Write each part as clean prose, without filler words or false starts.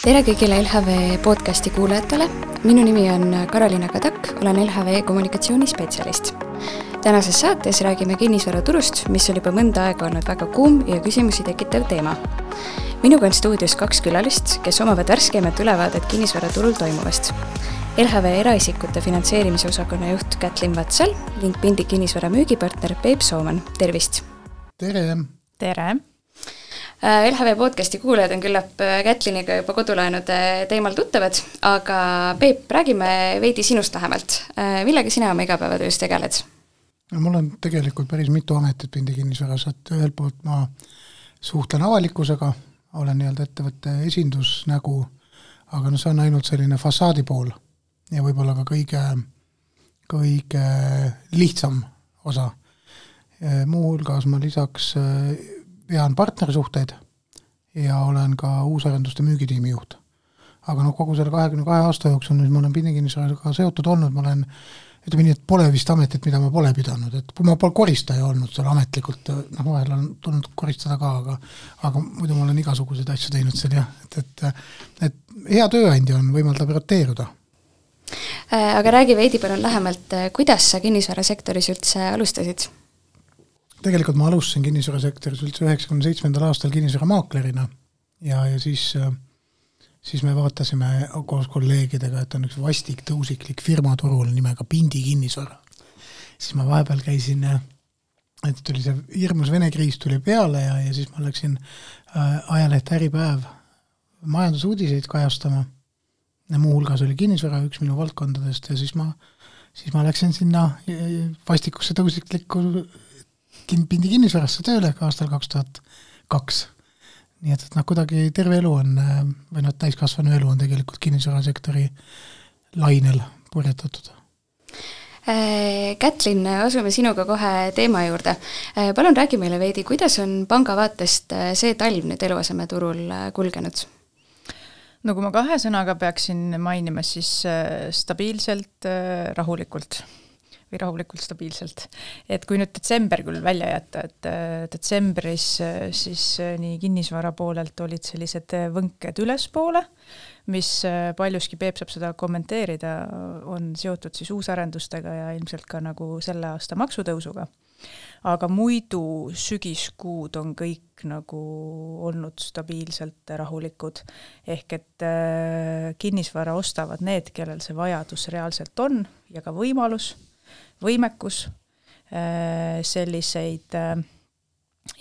Tere kõigile LHV podcasti kuulajatele. Minu nimi on Karoliina Kadak, olen LHV kommunikatsioonispetsialist. Tänases saates räägime kinnisvaraturust, mis on juba mõnda aega olnud väga kuum ja küsimusi tekitav teema. Minuga on stuudios 2 külalist, kes omavad värskemat ülevaadet kinnisvaraturul toimuvast. LHV eraisikute finantseerimise osakonna juht Kätlin Vatsal ning Pindi kinnisvara müügipartner Peep Sooman. Tervist! Tere! Tere! LHV podcasti kuulajad on küllap Kätliniga juba kodulaenude teemal tuttavad, aga Peep, räägime veidi sinust lähemalt. Millega sina oma igapäevatöös tegeled? Mul on tegelikult päris mitu ametit Pindi kinnisvaras, et ühelt poolt ma suhtlen avalikkusega, olen ettevõtte esindusnägu, aga see on ainult selline fassaadi pool ja võib-olla ka kõige lihtsam osa. Muuhulgas ma lisaks vean partnersuhteid ja olen ka uusarenduste müügitiimi juht. Aga kogu selle 22 aasta jooksul, mis ma olen Pindi kinnisvaraga seotud olnud, ma olen, ütleme nii, et pole vist ametit, mida ma pole pidanud. Et ma pole koristaja olnud seal ametlikult, vahel on tulnud koristada ka, aga muidu ma olen igasuguseid asju teinud seal, jah. Et hea tööandja on võimaldab roteeruda. Aga räägi veidi palun lähemalt, kuidas sa kinnisvarasektoris üldse alustasid? Tegelikult ma alustasin kinnisvarasektoris üldse 97. aastal kinnisvaramaaklerina ja siis me vaatasime koos kolleegidega, et on üks vastik tõusiklik firma turul nimega Pindi kinnisvara. Siis ma vahepeal käisin, et tuli see hirmus Vene kriis tuli peale ja siis ma läksin ajaleht Äripäev majandusuudiseid kajastama. Ja muuhulgas oli kinnisvara üks minu valdkondadest ja siis ma läksin sinna vastikusse tõusiklikku Pindi kinnisvarasse tööle aastal 2002. Nii et kuidagi terve elu on, või täiskasvanu elu on tegelikult kinnisvarasektori lainel purjetatud. Kätlin, asume sinuga kohe teema juurde. Palun räägi meile veidi, kuidas on panga vaatest see talv nüüd eluasemeturul kulgenud? No kui ma 2 sõnaga peaksin mainima, siis stabiilselt, rahulikult stabiilselt. Et kui nüüd detsember küll välja jätta, et detsembris siis nii kinnisvara poolelt olid sellised võnked ülespoole, mis paljuski Peep saab seda kommenteerida, on seotud siis uusarendustega ja ilmselt ka nagu selle aasta maksutõusuga. Aga muidu sügiskuud on kõik nagu olnud stabiilselt rahulikud. Ehk et kinnisvara ostavad need, kellel see vajadus reaalselt on ja ka võimekus, selliseid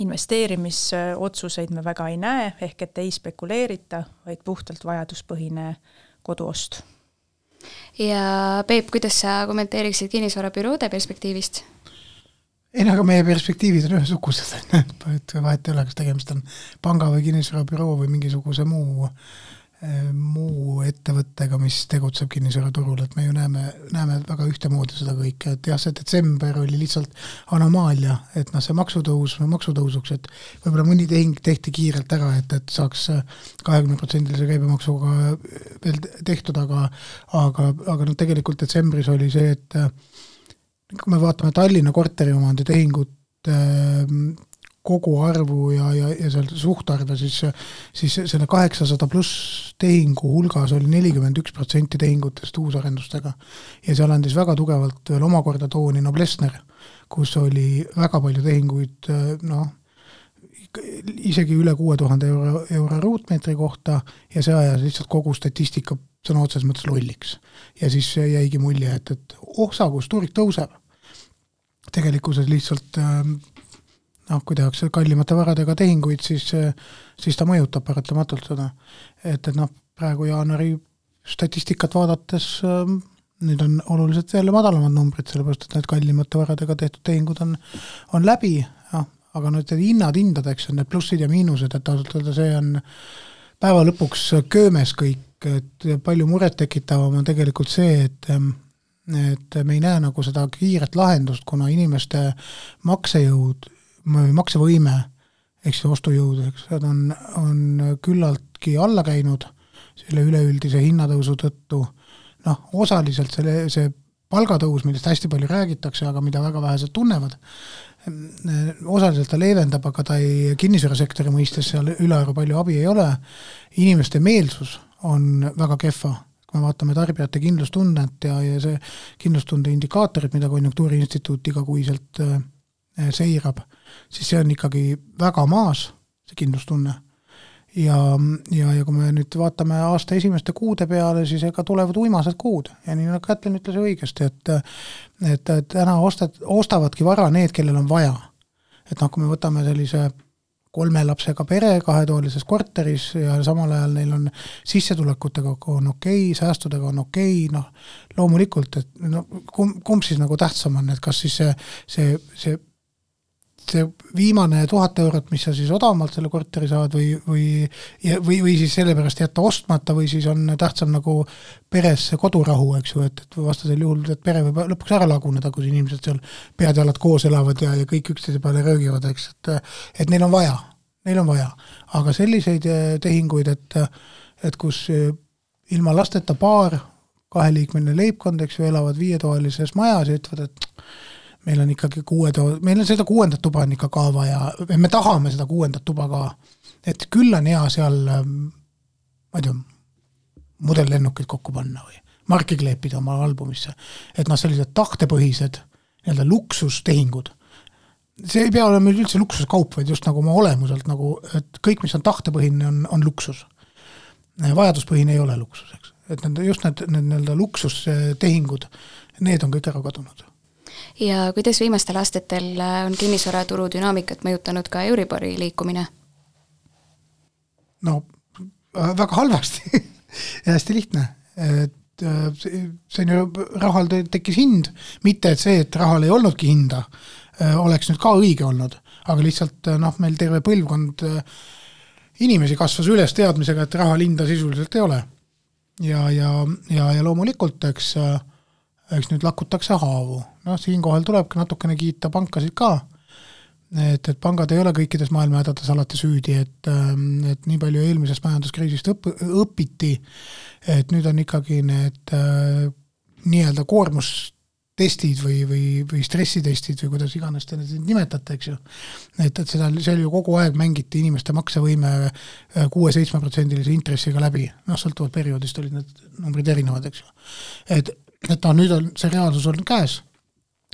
investeerimisotsuseid me väga ei näe, ehk et ei spekuleerita, vaid puhtalt vajaduspõhine koduost. Ja Peep, kuidas sa kommenteeriksid kinnisvarabüroode perspektiivist? Aga meie perspektiivid on ühesugused, et vahet ei ole, kas tegemist on panga või kinnisvarabüroo või mingisuguse muu ettevõttega, mis tegutseb kinnisvaraturul, et me ju näeme väga ühtemoodi seda kõike, et jah, see detsember oli lihtsalt anomaalia, et see maksutõusuks, et võib-olla mõni tehing tehti kiirelt ära, et saaks 20% käibemaksuga veel tehtud, aga tegelikult detsembris oli see, et kui me vaatame Tallinna korteriomandi tehingut kogu arvu ja seal suhtarve, siis selle 800 pluss tehingu hulgas oli 41% tehingutest uusarendustega. Ja seal andis väga tugevalt veel omakorda tooni Noblessner, kus oli väga palju tehinguid, isegi üle 6000 euro ruutmeetri kohta ja see ajas lihtsalt kogu statistika sõna otses mõttes lolliks. Ja siis jäigi mulje, et kus tuurik tõuseb. Tegelikkuses lihtsalt kui tehakse kallimate varadega tehinguid, siis ta mõjutab paratamatult seda. Et praegu jaanuari statistikat vaadates nüüd on oluliselt jälle madalamad numbrid, sellepärast, et need kallimate varadega tehtud tehingud on läbi, aga need hindadeks on need plussid ja miinused, et see on päeva lõpuks köömes kõik, et palju muret tekitavam on tegelikult see, et me ei näe nagu seda kiiret lahendust, kuna inimeste maksevõime, eks see ostujõud, on küllaltki alla käinud selle üleüldise hinnatõusu tõttu. Osaliselt see palgatõus, millest hästi palju räägitakse, aga mida väga vähesed tunnevad, osaliselt ta leevendab, aga ta ei kinnisvarasektori mõistes seal ülearu palju abi ei ole. Inimeste meelsus on väga kehva. Kui me vaatame tarbijate kindlustunnet ja see kindlustunde indikaatorid, mida Konjunktuuriinstituut igakuiselt seirab, siis see on ikkagi väga maas, see kindlustunne. Ja kui me nüüd vaatame aasta esimeste kuude peale, siis ega tulevad uimased kuud. Ja nii nagu Kätlin ütles õigesti, et täna ostavadki vara need, kellel on vaja. Et kui me võtame sellise 3 lapsega pere 2-toalises korteris ja samal ajal neil on sissetulekutega on okei, säästudega on okei, loomulikult, et kumb siis nagu tähtsam on, et kas siis see viimane 1000 eurot, mis sa siis odavamalt selle korteri saad või siis sellepärast jätta ostmata või siis on tähtsam nagu peres kodurahu, eks ju, et vastasel juhul, et pere võib lõpuks ära laguneda, kui inimesed seal pead jalad koos elavad ja kõik üksteise peale röögivad, eks, et neil on vaja. Aga selliseid tehinguid, et kus ilma lasteta paar, 2-liikmeline leibkond, eks ju, elavad 5-toalises majas ja ütlevad, et meil on ikkagi meil on seda 6. tuba on ikka ka vaja, me tahame seda 6. tuba ka, et küll on hea seal, ma ei tea, modellennukid kokku panna või marki kleepida oma albumisse, et sellised tahtepõhised nii-öelda luksustehingud, see ei pea olema meil üldse luksuskaup, vaid just nagu oma olemuselt, nagu, et kõik, mis on tahtepõhine, on luksus. Vajaduspõhine ei ole luksus, eks. Et just need luksustehingud, need on kõik ära kadunud. Ja kuidas viimastel aastatel on kinnisvaraturu dünaamikat mõjutanud ka Euribori liikumine? Väga halvasti ja hästi lihtne. Et see on ju, rahal tekkis hind, mitte et see, et rahal ei olnudki hinda, oleks nüüd ka õige olnud, aga lihtsalt meil terve põlvkond inimesi kasvas üles teadmisega, et rahal hinda sisuliselt ei ole. Ja loomulikult, eks nüüd lakutakse haavu. Siinkohal tulebki natukene kiita pankasid ka, et pangad ei ole kõikides maailma hädades alati süüdi, et nii palju eelmisest majanduskriisist õpiti, et nüüd on ikkagi need nii-öelda koormustestid või stressitestid või kuidas iganes te need nimetate, eks ju. Et seal ju kogu aeg mängiti inimeste maksevõime 6-7% intressiga läbi. Sõltuvalt perioodist olid need numbrid erinevad, eks ju. Et nüüd on see reaalsus olnud käes.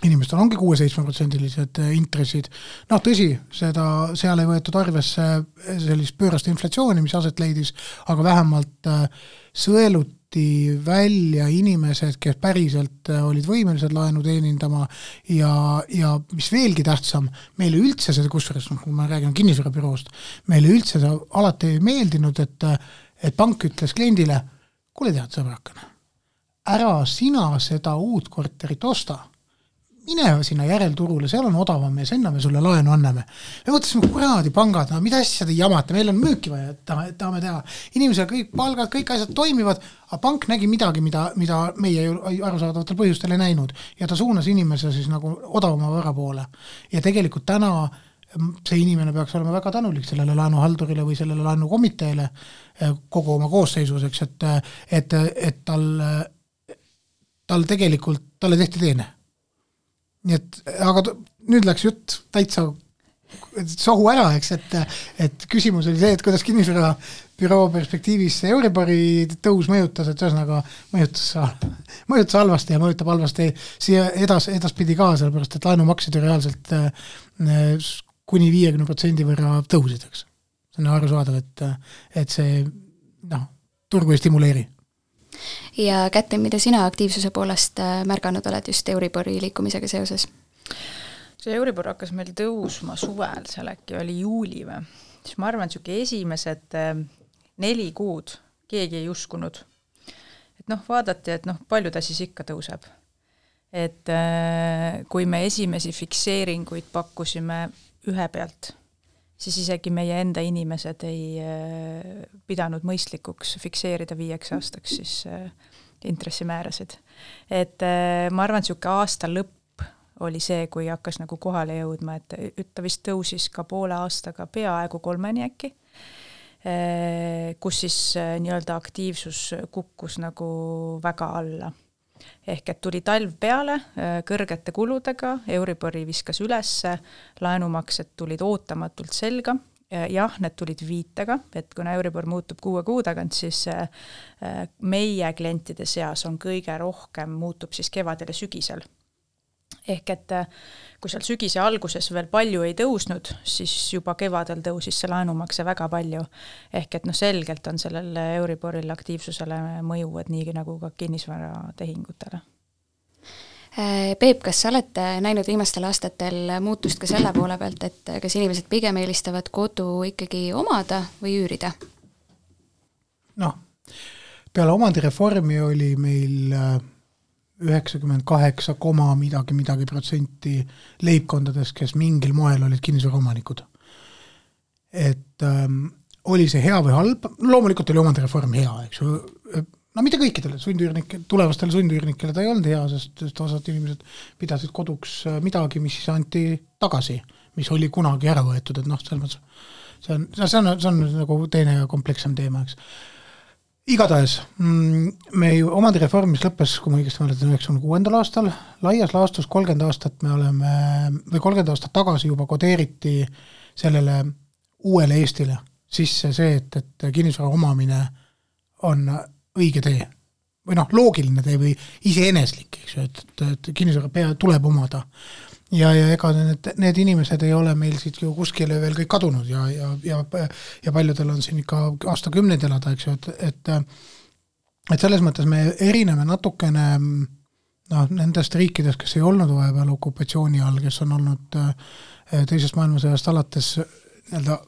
Inimestel ongi 6-7% intressid. Tõsi, seal ei võetud arvesse sellist pöörast inflatsiooni, mis aset leidis, aga vähemalt sõeluti välja inimesed, kes päriselt olid võimelised laenu teenindama ja mis veelgi tähtsam, meile üldse seda, kusjuures, kui ma räägin kinnisvarabüroost, meile üldse see alati ei meeldinud, et pank ütles kliendile, kuule tead sõbrakene, ära sina seda uut korterit osta, mine sinna järelturule, seal on odavam ja sinna me sulle laenu anname. Me mõtlesime, kuradi pangad, mida asja te jamate, meil on müüki vaja, et tahame teha. Inimesel kõik palgad, kõik asjad toimivad, aga pank nägi midagi, mida meie arusaadavatel põhjustel ei näinud ja ta suunas inimese siis nagu odavama vara poole. Ja tegelikult täna see inimene peaks olema väga tänulik sellele laenuhaldurile või sellele laenukomiteele kogu oma koosseisuseks, et tal tegelikult, talle tehti teene. Nii aga nüüd läks jutt täitsa sohu ära, eks, et küsimus oli see, et kuidas kinnisvarabüroo perspektiivis Euribori tõus mõjutas, et ühesõnaga mõjutas halvasti ja mõjutab halvasti siia edaspidi ka, sellepärast, et laenumaksed ju reaalselt kuni 50% võrra tõusid, eks. See on arusaadav, et see turgu ei stimuleeri. Ja Kätlin, mida sina aktiivsuse poolest märganud oled just Euribori liikumisega seoses? See Euribor hakkas meil tõusma suvel, seal äkki oli juuli või. Siis ma arvan, et esimesed 4 kuud keegi ei uskunud. Et vaadati, et palju ta siis ikka tõuseb. Et kui me esimesi fikseeringuid pakkusime ühe pealt, siis isegi meie enda inimesed ei pidanud mõistlikuks fikseerida 5 aastaks siis intressimäärasid. Et ma arvan, et aasta lõpp oli see, kui hakkas nagu kohale jõudma, et ta vist tõusis ka poole aastaga peaaegu 3 äkki, kus siis nii-öelda aktiivsus kukkus nagu väga alla. Ehk et tuli talv peale kõrgete kuludega, Euribori viskas ülesse, laenumaksed tulid ootamatult selga jah, need tulid viitega, et kuna Euribor muutub 6 kuu tagant, siis meie klientide seas on kõige rohkem muutub siis kevadel ja sügisel. Ehk et kui seal sügise alguses veel palju ei tõusnud, siis juba kevadel tõusis see laenumakse väga palju. Ehk et selgelt on sellel Euriboril aktiivsusele mõju, et nii nagu ka kinnisvaratehingutele. Peep, kas sa olete näinud viimastel aastatel muutust ka selle poole pealt, et kas inimesed pigem eelistavad kodu ikkagi omada või üürida? Peale omandireformi oli meil 98, midagi protsenti leibkondades, kes mingil moel olid kinnisvaraomanikud. Et oli see hea või halb? Loomulikult oli omandireform hea, eks ju. Mitte kõikidele tulevastele sundüürnikele ta ei olnud hea, sest osad inimesed pidasid koduks midagi, mis siis anti tagasi, mis oli kunagi ära võetud, et see on nagu teine komplekssem teema, eks. Igatahes, me ju omandireform, mis lõppes, kui ma õigesti mäletan, 96. aastal, laias laastus 30 aastat tagasi juba kodeeriti sellele uuele Eestile sisse see, et kinnisvara omamine on õige tee. Või loogiline tee või iseeneslik, eks ju, et kinnisvara tuleb omada. Ja ega need inimesed ei ole meil siit ju kuskile veel kõik kadunud ja paljudel on siin ikka aastakümneid elada, eks ju, et selles mõttes me erineme natukene nendest riikidest, kes ei olnud vahepeal okupatsiooni all, kes on olnud teisest maailmasõjast alates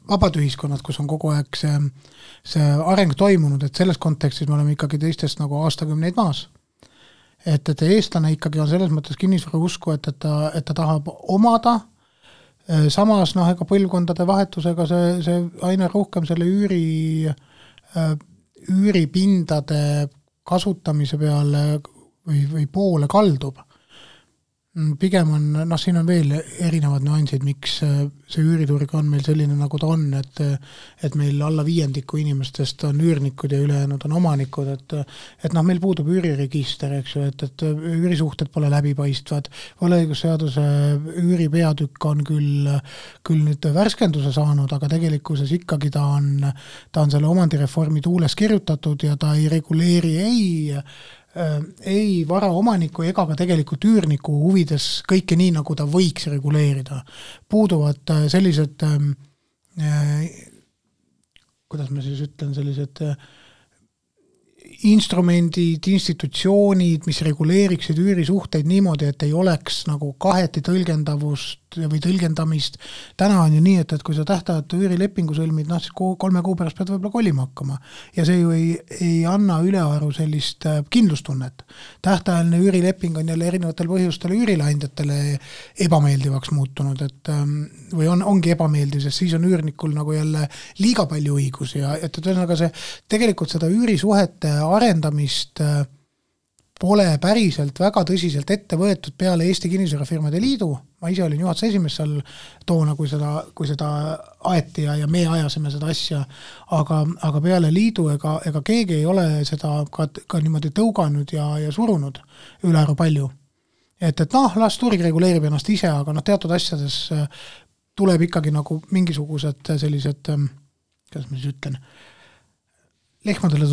vabad ühiskonnad, kus on kogu aeg see areng toimunud, et selles kontekstis me oleme ikkagi teistest nagu aastakümneid maas. Et eestlane ikkagi on selles mõttes kinnisvara usku, et ta tahab omada, samas ega põlvkondade vahetusega see aina rohkem selle üüripindade kasutamise peale või poole kaldub. Pigem on, siin on veel erinevad nüansid, miks see üüriturg on meil selline, nagu ta on, et meil alla 5% inimestest on üürnikud ja ülejäänud on omanikud, et meil puudub üüriregister, eks ju, et üürisuhted pole läbipaistvad, võlaõigusseaduse üüripeatükk on küll nüüd värskenduse saanud, aga tegelikkuses ikkagi ta on selle omandireformi tuules kirjutatud ja ta ei reguleeri ei varaomaniku ega ka tegelikult üürniku huvides kõike nii, nagu ta võiks reguleerida. Puuduvad sellised, kuidas ma siis ütlen, sellised instrumendid, institutsioonid, mis reguleeriksid üürisuhteid niimoodi, et ei oleks nagu kaheti tõlgendavust või tõlgendamist. Täna on ju nii, et kui sa tähtajatu üürilepingu sõlmid, siis 3 kuu pärast pead võib-olla kolima hakkama. Ja see ju ei anna ülearu sellist kindlustunnet. Tähtajaline üürileping on jälle erinevatel põhjustel üürileandjatele ebameeldivaks muutunud, või ongi ebameeldiv, sest siis on üürnikul nagu jälle liiga palju õigusi ja see tegelikult seda üürisuhete arendamist pole päriselt väga tõsiselt ette võetud peale Eesti Kinnisvarafirmade Liidu. Ma ise olin juhatuse esimees seal toona, kui seda aeti ja me ajasime seda asja, aga peale liidu ega keegi ei ole seda ka niimoodi tõuganud ja surunud ülearu palju. Et las turg reguleerib ennast ise, aga teatud asjades tuleb ikkagi nagu mingisugused sellised, kuidas ma siis ütlen, lehmadele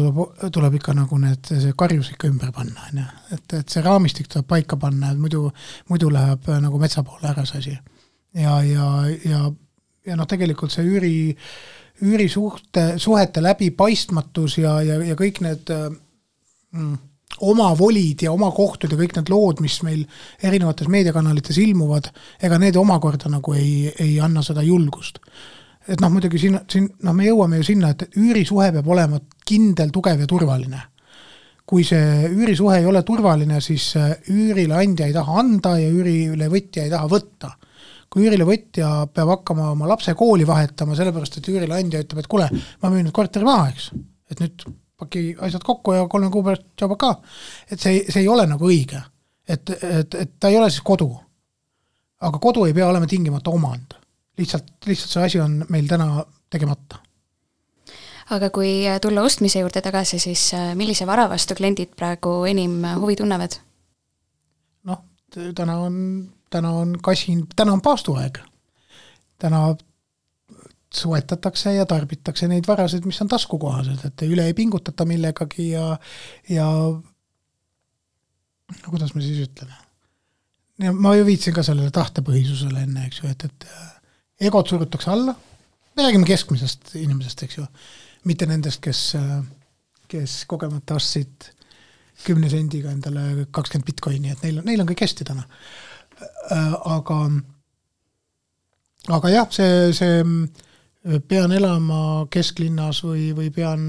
tuleb ikka nagu see karjus ikka ümber panna, et see raamistik tuleb paika panna, et muidu läheb nagu metsa poole ära see asi. Ja tegelikult see üürisuhete läbipaistmatus ja kõik need oma volid ja oma kohtud ja kõik need lood, mis meil erinevates meediakanalites ilmuvad, ega need omakorda nagu ei anna seda julgust. Et muidugi siin me jõuame ju sinna, et üürisuhe peab olema kindel, tugev ja turvaline. Kui see üürisuhe ei ole turvaline, siis üürileandja ei taha anda ja üürilevõtja ei taha võtta. Kui üürilevõtja peab hakkama oma lapse kooli vahetama, sellepärast, et üürileandja ütleb, et kuule, ma müün nüüd korteri maha, eks. Et nüüd paki asjad kokku ja 3 kuu pärast tšauba ka. Et see ei ole nagu õige. Et ta ei ole siis kodu. Aga kodu ei pea olema tingimata omand. Lihtsalt see asi on meil täna tegemata. Aga kui tulla ostmise juurde tagasi, siis millise vara vastu kliendid praegu enim huvi tunnevad? Täna on paastuaeg. Täna soetatakse ja tarbitakse neid varasid, mis on taskukohased, et üle ei pingutata millegagi ja kuidas me siis ütleme. Ja ma ju viitsin ka sellele tahtepõhisusele enne, eks ju, et egod surutakse alla, me räägime keskmisest inimesest, eks ju, mitte nendest, kes kogemata ostsid 10 sendiga endale 20 bitcoini, et neil on kõik hästi täna. Aga jah, see pean elama kesklinnas või pean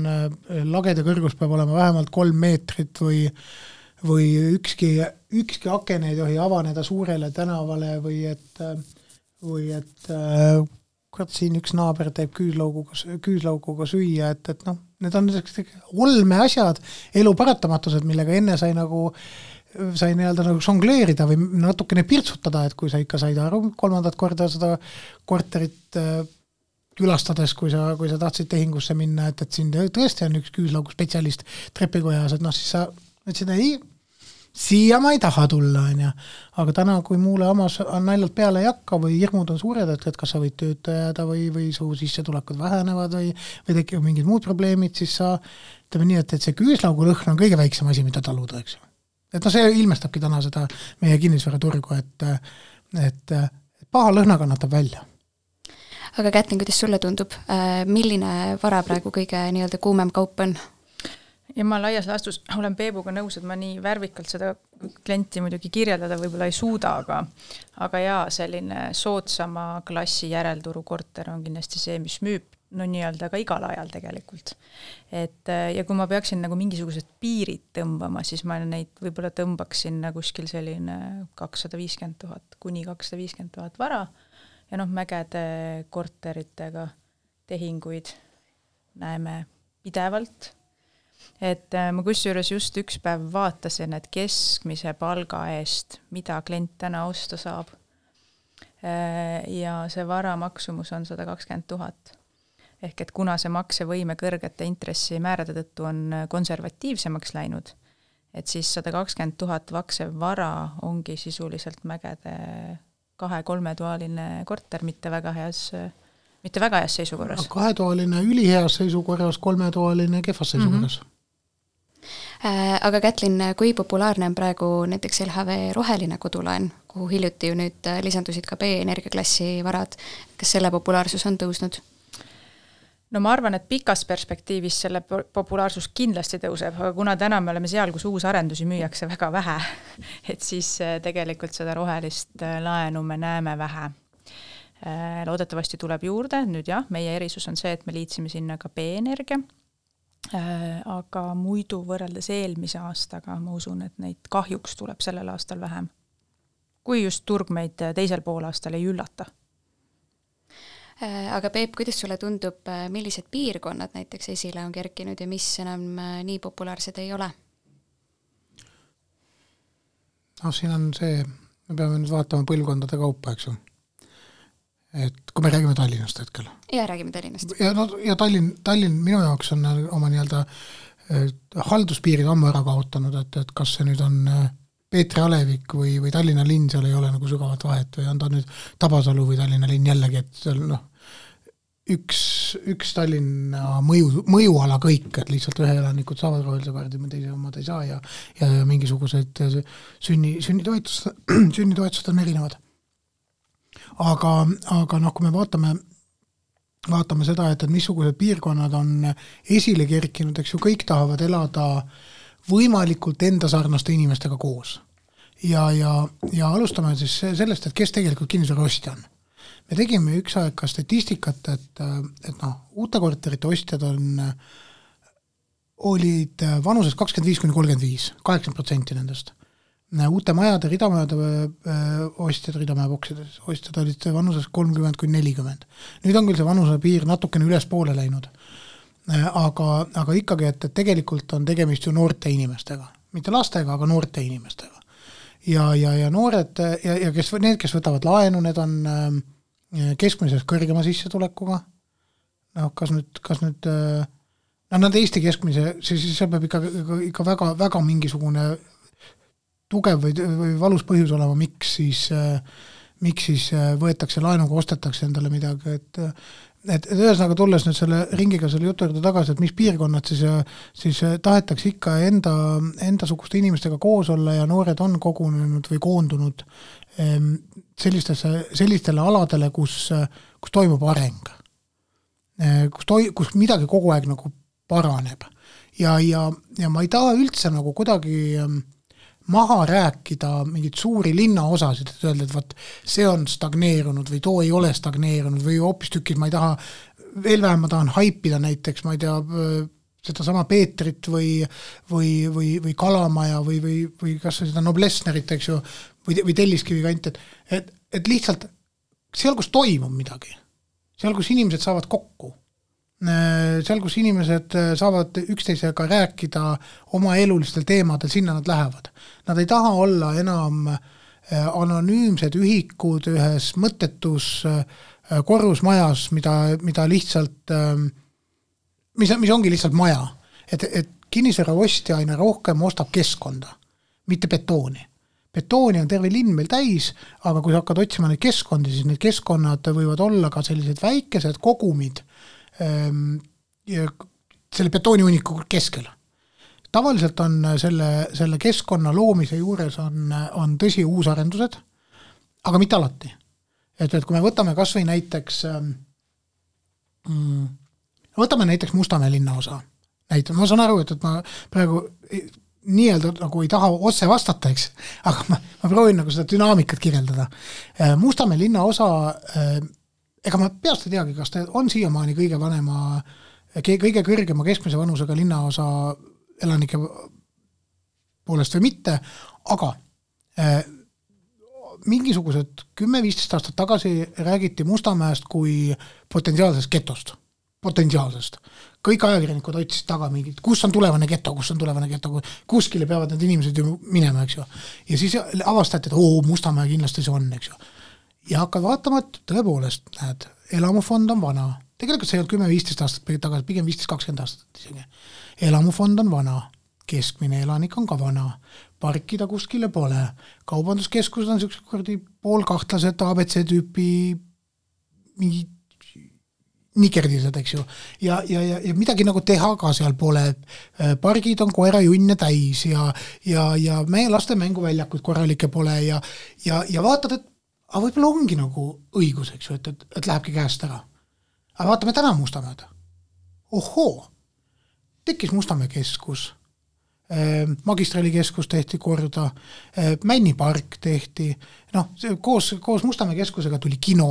lagede kõrgus peab olema vähemalt 3 meetrit või ükski aken ei tohi avaneda suurele tänavale või et kurat, siin üks naaber teeb küüslauguga süüa, et noh, need on olme asjad, elu paratamatused, millega enne sai nii-öelda nagu žongleerida või natukene pirtsutada, et kui sa ikka said aru 3. korda seda korterit külastades, kui sa tahtsid tehingusse minna, et siin tõesti on üks küüslaugu spetsialist trepikojas, et noh, siis sa ütlesid, ei, siia ma ei taha tulla, aga täna, kui muule omas naljalt peale ei hakka või hirmud on suured, et kas sa võid tööta jääda või su sissetulekud vähenevad või tekivad mingid muud probleemid, siis sa ütleme nii, et see küüslaugu lõhn on kõige väiksem asi, mida taluda, eks ju. Et no see ilmestabki täna seda meie kinnisvaraturgu, et paha lõhna kannatab välja. Aga Kätlin, kuidas sulle tundub, milline vara praegu kõige nii-öelda kuumem kaup on? Ja ma laias laastus olen Peebuga nõus, et ma nii värvikalt seda klienti muidugi kirjeldada võib-olla ei suuda, aga jaa, selline soodsama klassi järelturu korter on kindlasti see, mis müüb no nii-öelda ka igal ajal tegelikult. Ja kui ma peaksin nagu mingisugused piirid tõmbama, siis ma neid võib-olla tõmbaksin kuskil selline 250 000 kuni 250 000 vara ja noh, mägede korteritega tehinguid näeme pidevalt. Et ma kusjuures just üks päev vaatasin, et keskmise palga eest, mida klient täna osta saab. Ja see vara maksumus on 120 000. Ehk et kuna see maksevõime kõrgete intressimäärade tõttu on konservatiivsemaks läinud, et siis 120 000 vaksev vara ongi sisuliselt mägede 2-3 toaline korter, mitte väga heas seisukorras. 2-toaline üliheas seisukorras, 3-toaline kehvas seisukorras. Aga Kätlin, kui populaarne on praegu näiteks LHV roheline kodulaen, kuhu hiljuti ju nüüd lisandusid ka B-energiaklassi varad, kas selle populaarsus on tõusnud? No ma arvan, et pikas perspektiivis selle populaarsus kindlasti tõuseb, aga kuna täna me oleme seal, kus uusarendusi müüakse väga vähe, et siis tegelikult seda rohelist laenu me näeme vähe. Loodetavasti tuleb juurde, nüüd jah, meie erisus on see, et me liitsime sinna ka B-energia, aga muidu võrreldes eelmise aastaga ma usun, et neid kahjuks tuleb sellel aastal vähem. Kui just turg meid teisel poolaastal ei üllata. Aga Peep, kuidas sulle tundub, millised piirkonnad näiteks esile on kerkinud ja mis enam nii populaarsed ei ole? No siin on see, me peame nüüd vaatama põlvkondade kaupa, eks ju. Et kui me räägime Tallinnast hetkel. Ja räägime Tallinnast. Ja Tallinn minu jaoks on oma nii-öelda halduspiirid ammu ära kaotanud, et kas see nüüd on Peetri Alevik või Tallinna linn, seal ei ole nagu sügavat vahet või on ta nüüd Tabasalu või Tallinna linn jällegi, et seal üks Tallinna mõjuala kõik, et lihtsalt ühe elanikud saavad rohelise kaardi, teise omad ei saa ja mingisugused sünnitoetused on erinevad. Aga noh, kui me vaatame seda, et missugused piirkonnad on esile kerkinud, eks ju, kõik tahavad elada võimalikult enda sarnaste inimestega koos. Ja alustame siis sellest, et kes tegelikult kinnisvara ostja on. Me tegime üks aeg ka statistikat, et uute korterite ostjad olid vanuses 25-35, 80% nendest. Uute majade, ridamajade ostjad, ridamajabokside ostjad olid vanuses 30-40. Nüüd on küll see vanuse piir natukene ülespoole läinud. Aga ikkagi, et tegelikult on tegemist ju noorte inimestega. Mitte lastega, aga noorte inimestega. Ja noored, ja need, kes võtavad laenu, need on keskmises kõrgema sissetulekuga. Kas nüüd nad Eesti keskmise, siis seal peab ikka väga, väga mingisugune tugev või valus põhjus olema, miks miks siis võetakse laenuga, ostetakse endale midagi, et ühesõnaga tulles nüüd selle ringiga selle jutu juurde tagasi, et mis piirkonnad siis tahetakse ikka endasuguste inimestega koos olla ja noored on kogunenud või koondunud sellistele aladele, kus toimub areng. Kus midagi kogu aeg nagu paraneb. Ja ma ei taha üldse nagu kuidagi maha rääkida mingit suuri linnaosasid, et öelda, et vaat see on stagneerunud või too ei ole stagneerunud või hoopis tükid, ma ei taha, veel vähem ma tahan haipida näiteks, ma ei tea, seda sama Peetrit või Kalamaja või kas seda Noblessnerit, eks ju, või Telliskivi kant, et lihtsalt seal, kus toimub midagi, seal, kus inimesed saavad kokku, seal, kus inimesed saavad üksteisega rääkida oma elulistel teemadel, sinna nad lähevad. Nad ei taha olla enam anonüümsed ühikud ühes mõttetus korrusmajas, mida lihtsalt, mis ongi lihtsalt maja. Et kinnisvara ostja aina rohkem ostab keskkonda, mitte betooni. Betooni on terve linn meil täis, aga kui sa hakkad otsima neid keskkondi, siis need keskkonnad võivad olla ka sellised väikesed kogumid selle betooniuniku keskel. Tavaliselt on selle keskkonna loomise juures on tõsi uusarendused, aga mitte alati. Et kui me võtame kas või näiteks Mustamäe linnaosa. Ma saan aru, et ma praegu nii-öelda nagu ei taha otse vastata, eks, aga ma proovin nagu seda dünaamikat kirjeldada. Mustamäe linnaosa, ega ma peast ei teagi, kas ta on siiamaani kõige kõrgema keskmise vanusega linnaosa elanike poolest või mitte, aga mingisugused 10-15 aastat tagasi räägiti Mustamäest kui potentsiaalsest getost. Potentsiaalsest. Kõik ajakirjanikud otsisid taga mingid, kus on tulevane geto, kuskile peavad need inimesed ju minema, eks ju. Ja siis avastati, et Mustamäe kindlasti see on, eks ju. Ja hakkad vaatama, et tõepoolest, näed, elamufond on vana. Tegelikult see ei olnud 10-15 aastat tagasi, pigem 15-20 aastat isegi. Elamufond on vana, keskmine elanik on ka vana, parkida kuskile pole, kaubanduskeskused on sellised kordi poolkahtlased ABC-tüüpi mingi nikerdised, eks ju, ja midagi nagu teha ka seal pole, pargid on koera junne täis ja meie laste mänguväljakud korralike pole ja vaatad, et võib-olla ongi nagu õigus, eks ju, et lähebki käest ära. Aga vaatame täna Mustamäed. Ohoo, tekkis Mustamäe keskus, magistralikeskus tehti korda, Männi park tehti, koos Mustamäe keskusega tuli kino,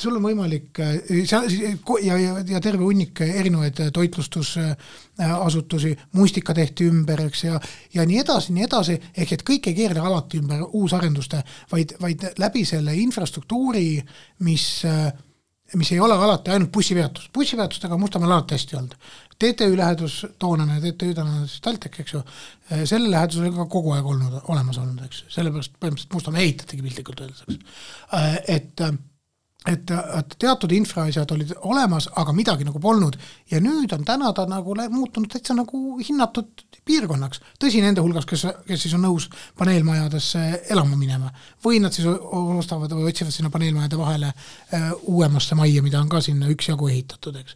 sul on võimalik ja terve hunnik erinevaid toitlustusasutusi, mustika tehti ümber, eks, ja nii edasi, ehk et kõik ei keerle alati ümber uusarenduste, vaid läbi selle infrastruktuuri, mis ei ole alati ainult bussipeatus. Bussipeatustega Mustamäel alati hästi olnud. TTÜ lähedus toonane, TTÜ tänane Taltek, eks ju, selle lähedus oli ka kogu aeg olemas olnud, eks. Sellepärast põhimõtteliselt Mustamäe ehitategi piltlikult öeldes, et teatud infraasjad olid olemas, aga midagi nagu polnud ja nüüd on täna ta nagu muutunud täitsa nagu hinnatud piirkonnaks. Tõsi nende hulgas, kes siis on nõus paneelmajadesse elama minema või nad siis ostavad või otsivad sinna paneelmajade vahele uuemasse majja, mida on ka sinna üksjagu ehitatud, eks.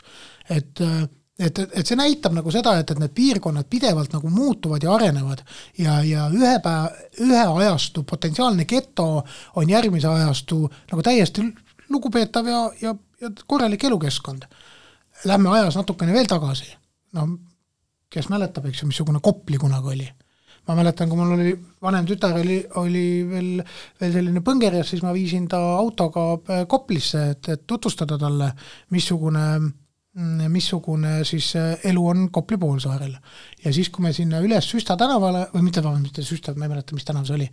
Et see näitab nagu seda, et need piirkonnad pidevalt nagu muutuvad ja arenevad ja ühe ajastu potentsiaalne geto on järgmise ajastu nagu täiesti lugupeetav ja korralik elukeskkond. Lähme ajas natukene veel tagasi. Kes mäletab, eks ju, missugune Kopli kunagi oli. Ma mäletan, kui mul oli vanem tütar oli veel selline põngerjas, siis ma viisin ta autoga Koplisse, et tutvustada talle, missugune siis elu on Kopli poolsaarel. Ja siis, kui me sinna üles Süsta tänavale, või mitte Süsta, ma ei mäleta, mis tänav see oli,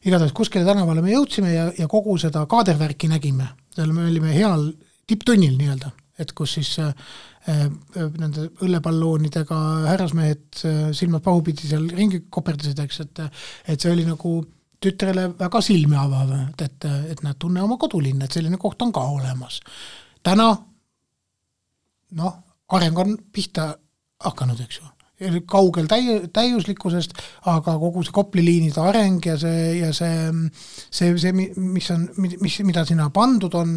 igatahes kuskile tänavale me jõudsime ja kogu seda kaadervärki nägime. Seal me olime heal tipptunnil nii-öelda, et kus siis nende õllepalloonidega härrasmehed silmad pahupidi seal ringi koperdasid, eks, et see oli nagu tütrele väga silmi avav, et nad tunne oma kodulinn, et selline koht on ka olemas. Täna areng on pihta hakanud, eks ju. kaugel täiuslikkusest, aga kogu see Kopli liinide areng ja mida sinna pandud on,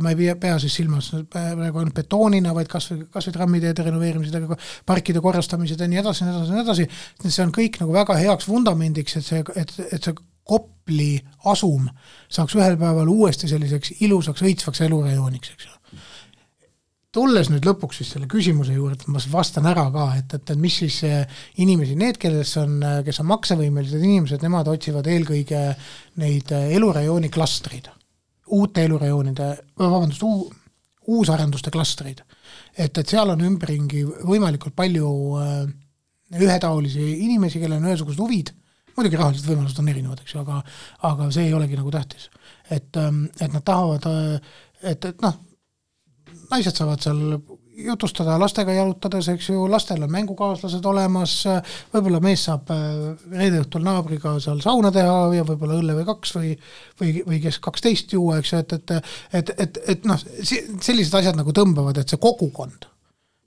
ma ei pea siis silmas praegu on betoonina, vaid kas või trammiteede renoveerimised, parkide korrastamised ja nii edasi. See on kõik nagu väga heaks vundamendiks, et see Kopli asum saaks ühel päeval uuesti selliseks ilusaks, õitsvaks elurajooniks, eks ju. Tulles nüüd lõpuks siis selle küsimuse juurde, ma vastan ära ka, et mis siis inimesi, need, kes on maksevõimelised inimesed, nemad otsivad eelkõige neid elurajooni klastreid, uute elurajoonide, uusarenduste klastreid. Et seal on ümberringi võimalikult palju ühetaolisi inimesi, kellel on ühesugused huvid, muidugi rahalised võimalused on erinevad, eks ju, aga see ei olegi nagu tähtis. Et nad tahavad, et naised saavad seal jutustada lastega jalutades, eks ju, lastel on mängukaaslased olemas, võib-olla mees saab reede õhtul naabriga seal sauna teha ja võib-olla õlle või 2 või kes 12 juua, eks ju, et sellised asjad nagu tõmbavad, et see kogukond,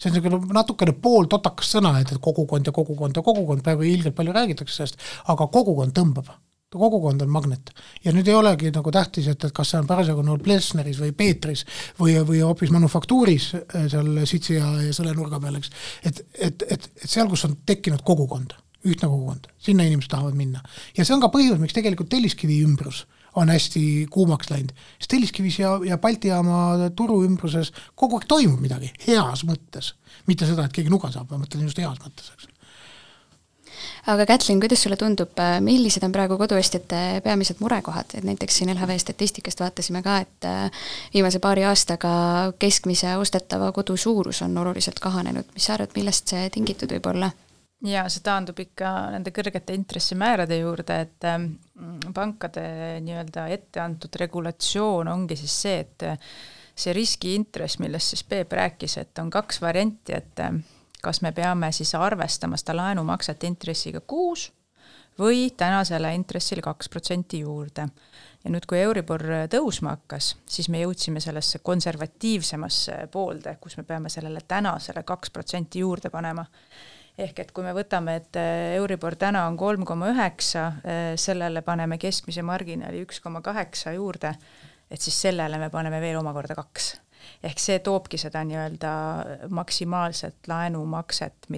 see on natukene pool totakas sõna, et kogukond ja kogukond ja kogukond, praegu ilgelt palju räägitakse sellest, aga kogukond tõmbab. Kogukond on magnet. Ja nüüd ei olegi nagu tähtis, et kas see on parasjagu nool Plesneris või Peetris või hoopis manufaktuuris seal Sitsi ja selle nurga peal, eks. Et seal, kus on tekkinud kogukond, ühtne kogukond, sinna inimesed tahavad minna. Ja see on ka põhjus, miks tegelikult Telliskivi ümbrus on hästi kuumaks läinud. Sest Telliskivis ja Baltijaama turu ümbruses kogu aeg toimub midagi heas mõttes. Mitte seda, et keegi nuga saab, ma mõtlen just heas mõttes, eks. Aga Kätlin, kuidas sulle tundub, millised on praegu koduostjate peamised murekohad? Et näiteks siin LHV statistikast vaatasime ka, et viimase paari aastaga keskmise ostetava kodu suurus on oluliselt kahanenud. Mis sa arvad, millest see tingitud võib olla? Ja see taandub ikka nende kõrgete intressimäärade juurde, et pankade nii-öelda ette antud regulatsioon ongi siis see, et see riskiintress, millest siis Peep rääkis, et on 2 varianti, et kas me peame siis arvestama seda laenumakset intressiga 6 või tänasele intressile 2% juurde. Ja nüüd, kui Euribor tõusma hakkas, siis me jõudsime sellesse konservatiivsemasse poolde, kus me peame sellele tänasele 2% juurde panema. Ehk et kui me võtame, et Euribor täna on 3,9, sellele paneme keskmise marginaali 1,8 juurde, et siis sellele me paneme veel omakorda 2. Ehk see toobki seda nii-öelda maksimaalset laenumakset,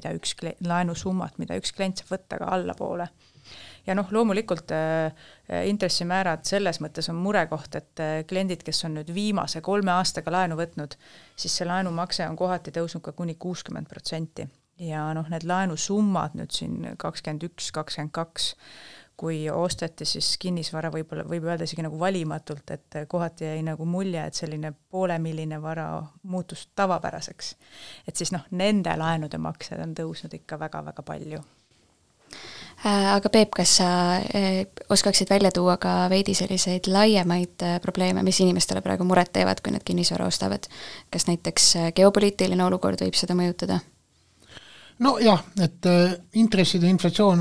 laenusummat, mida üks klient saab võtta ka allapoole. Ja loomulikult intressimäärad selles mõttes on murekoht, et kliendid, kes on nüüd viimase 3 aastaga laenu võtnud, siis see laenumakse on kohati tõusnud ka kuni 60%. Ja need laenusummad nüüd siin 21, 22, kui osteti siis kinnisvara võib öelda isegi nagu valimatult, et kohati jäi nagu mulje, et selline poolemilline vara muutus tavapäraseks. Et siis nende laenude maksed on tõusnud ikka väga-väga palju. Aga Peep, kas sa oskaksid välja tuua ka veidi selliseid laiemaid probleeme, mis inimestele praegu muret teevad, kui nad kinnisvara ostavad? Kas näiteks geopoliitiline olukord võib seda mõjutada? No jah, et intresside inflatsioon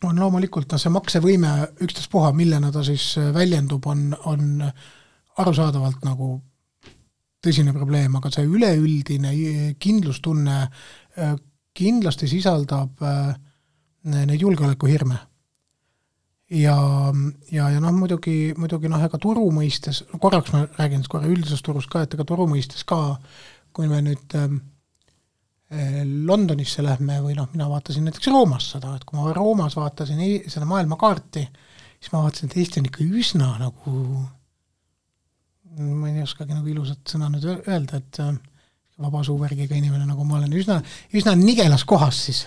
on loomulikult see maksevõime ükstaspuha, millena ta siis väljendub, on arusaadavalt nagu tõsine probleem, aga see üleüldine kindlustunne kindlasti sisaldab neid julgeolekuhirme. Ja muidugi ega turu mõistes, korraks ma räägin korra üldisest turust ka, et ega turu mõistes ka, kui me nüüd Londonisse lähme või mina vaatasin näiteks Roomas seda, et kui ma Roomas vaatasin seda maailmakaarti, siis ma vaatasin, et Eesti on ikka üsna nagu, ma ei oskagi nagu ilusat sõna nüüd öelda, et vabasuuvärgiga inimene, nagu ma olen üsna nigelas kohas siis.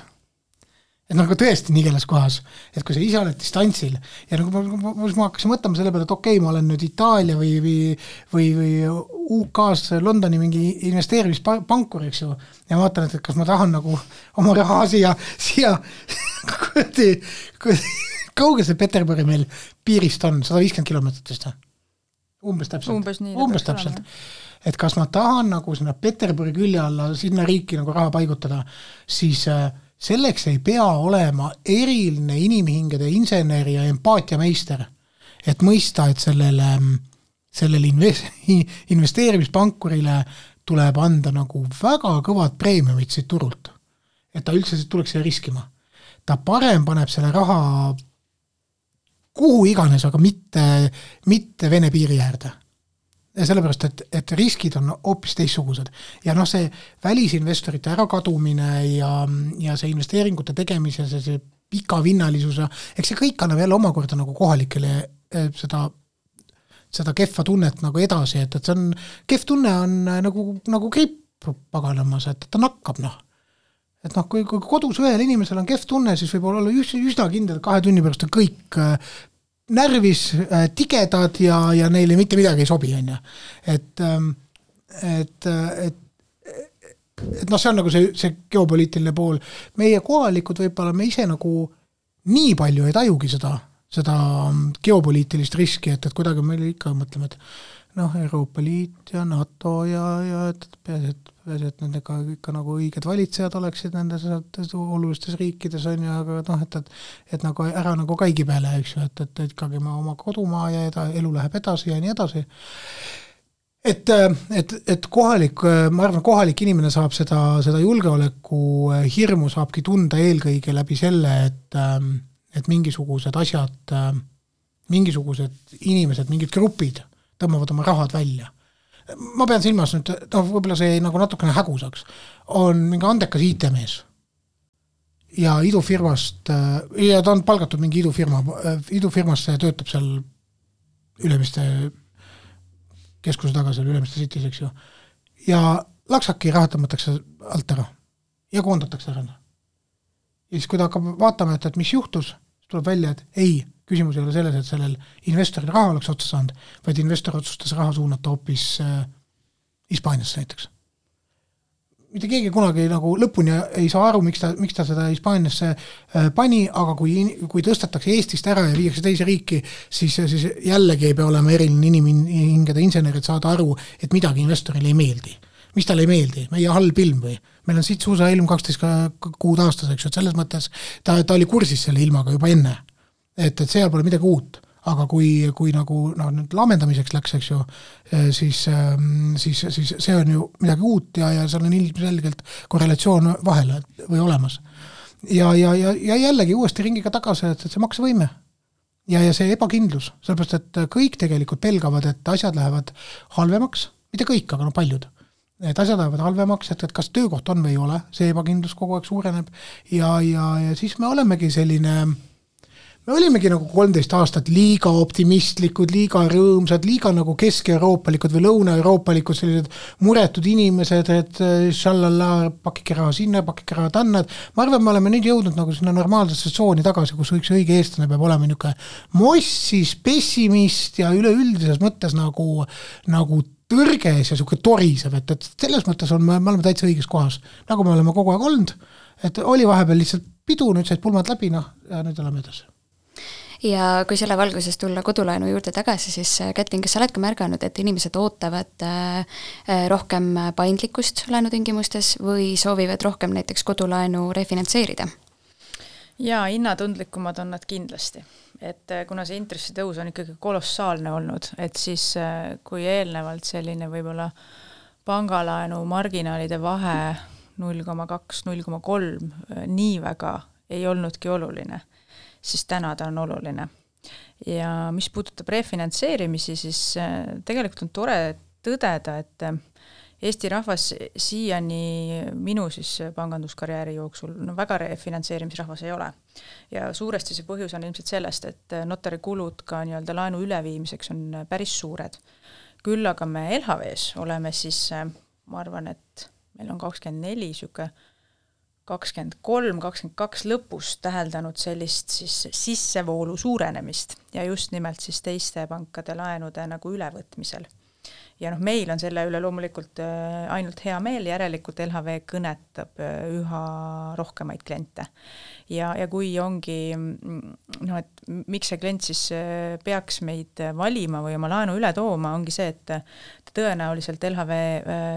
Et nagu tõesti nigelas kohas, et kui sa ise oled distantsil ja nagu ma hakkasin mõtlema selle peale, et okei, ma olen nüüd Itaalia või UK-s Londoni mingi investeerimispankur, eks ju, ja ma vaatan, et kas ma tahan nagu oma raha siia kaugel see Peterburi meil piirist on, 150 kilomeetrit vist. Umbes täpselt. Et kas ma tahan nagu sinna Peterburi külje alla sinna riiki nagu raha paigutada, siis selleks ei pea olema eriline inimhingede inseneri ja empaatiameister, et mõista, et sellele investeerimispankurile tuleb anda nagu väga kõvad preemiumid siit turult. et ta üldse tuleks siia riskima. Ta parem paneb selle raha kuhu iganes, aga mitte Vene piiri äärde. Ja sellepärast, et riskid on hoopis teistsugused. Ja see välisinvestorite ärakadumine ja see investeeringute tegemise, see pikavinnalisuse, eks see kõik annab jälle omakorda nagu kohalikele seda kehva tunnet nagu edasi, et see on, kehv tunne on nagu gripp paganamas, et ta nakkab, Et kui kodus ühel inimesel on kehv tunne, siis võib olla üsna kindel, 2 tunni pärast on kõik närvis, tigedad ja neile mitte midagi ei sobi, on ju. Et see on nagu see geopoliitiline pool. Meie kohalikud võib-olla me ise nagu nii palju ei tajugi seda geopoliitilist riski, et kuidagi meil ikka mõtleme, et Euroopa Liit ja NATO ja peaasi, et nendega ikka nagu õiged valitsejad oleksid nendes olulistes riikides on ju, aga et nagu ära nagu kaigi peale, eks ju, et ikkagi ma oma kodumaa ja elu läheb edasi ja nii edasi. Et kohalik, ma arvan, kohalik inimene saab seda julgeoleku hirmu saabki tunda eelkõige läbi selle, et mingisugused asjad, mingisugused inimesed, mingid grupid tõmbavad oma rahad välja. Ma pean silmas nüüd, võib-olla see nagu natukene hägusaks, on mingi andekas IT-mees ja idufirmast, ja ta on palgatud mingi idufirmasse ja töötab seal Ülemiste keskuse taga seal Ülemiste Cities, eks ju. Ja laksaki raha tõmmatakse alt ära ja koondatakse ära. Ja siis kui ta hakkab vaatama, et mis juhtus, tuleb välja, et ei, küsimus ei ole selles, et sellel investoril raha oleks otsa saanud, vaid investor otsustas raha suunata hoopis Hispaaniasse näiteks. Mitte keegi kunagi nagu lõpuni ei saa aru, miks ta seda Hispaaniasse pani, aga kui tõstetakse Eestist ära ja viiakse teise riiki, siis jällegi ei pea olema eriline inimhingede insenerid saada aru, et midagi investorile ei meeldi. Mis talle ei meeldi? Meie halb ilm või? Meil on siit suusa ilm 12 kuud aastas, eks ju, et selles mõttes ta oli kursis selle ilmaga juba enne. Et seal pole midagi uut, aga kui nagu nüüd lamendamiseks läks, eks ju, siis see on ju midagi uut ja seal on ilmselgelt korrelatsioon vahele või olemas. Ja jällegi uuesti ringiga tagasi, et see maksevõime ja see ebakindlus, sellepärast, et kõik tegelikult pelgavad, et asjad lähevad halvemaks, mitte kõik, aga paljud. Et asjad lähevad halvemaks, et kas töökoht on või ei ole, see ebakindlus kogu aeg suureneb ja siis me olemegi Me olimegi nagu 13 aastat liiga optimistlikud, liiga rõõmsad, liiga nagu kesk-euroopalikud või lõuna-euroopalikud sellised muretud inimesed, et šallalla, pakike raha sinna, pakike raha tanna. Ma arvan, me oleme nüüd jõudnud nagu sinna normaalsesse tsooni tagasi, kus üks õige eestlane peab olema niisugune mossis, pessimist ja üleüldises mõttes nagu tõrges ja niisugune torisev, et selles mõttes me oleme täitsa õiges kohas, nagu me oleme kogu aeg olnud, et oli vahepeal lihtsalt pidu, nüüd said pulmad läbi, ja nüüd oleme edasi. Ja kui selle valguses tulla kodulaenu juurde tagasi, siis Kätlin, kas sa oled ka märganud, et inimesed ootavad rohkem paindlikkust laenutingimustes või soovivad rohkem näiteks kodulaenu refinantseerida? Ja hinnatundlikumad on nad kindlasti. Et kuna see intressitõus on ikkagi kolossaalne olnud, et siis kui eelnevalt selline võib-olla pangalaenu marginaalide vahe 0,2, 0,3 nii väga ei olnudki oluline, siis täna ta on oluline. Ja mis puudutab refinantseerimisi, siis tegelikult on tore tõdeda, et Eesti rahvas siiani minu siis panganduskarjääri jooksul väga refinantseerimisrahvas ei ole. Ja suuresti see põhjus on ilmselt sellest, et notarikulud ka nii-öelda laenu üleviimiseks on päris suured. Küll aga me LHV-s oleme siis, ma arvan, et meil on 24, siuke 23, 22 lõpus täheldanud sellist siis sissevoolu suurenemist ja just nimelt siis teiste pankade laenude nagu ülevõtmisel. Ja meil on selle üle loomulikult ainult hea meel, järelikult LHV kõnetab üha rohkemaid kliente. Ja kui ongi, et miks see klient siis peaks meid valima või oma laenu üle tooma, ongi see, et tõenäoliselt LHV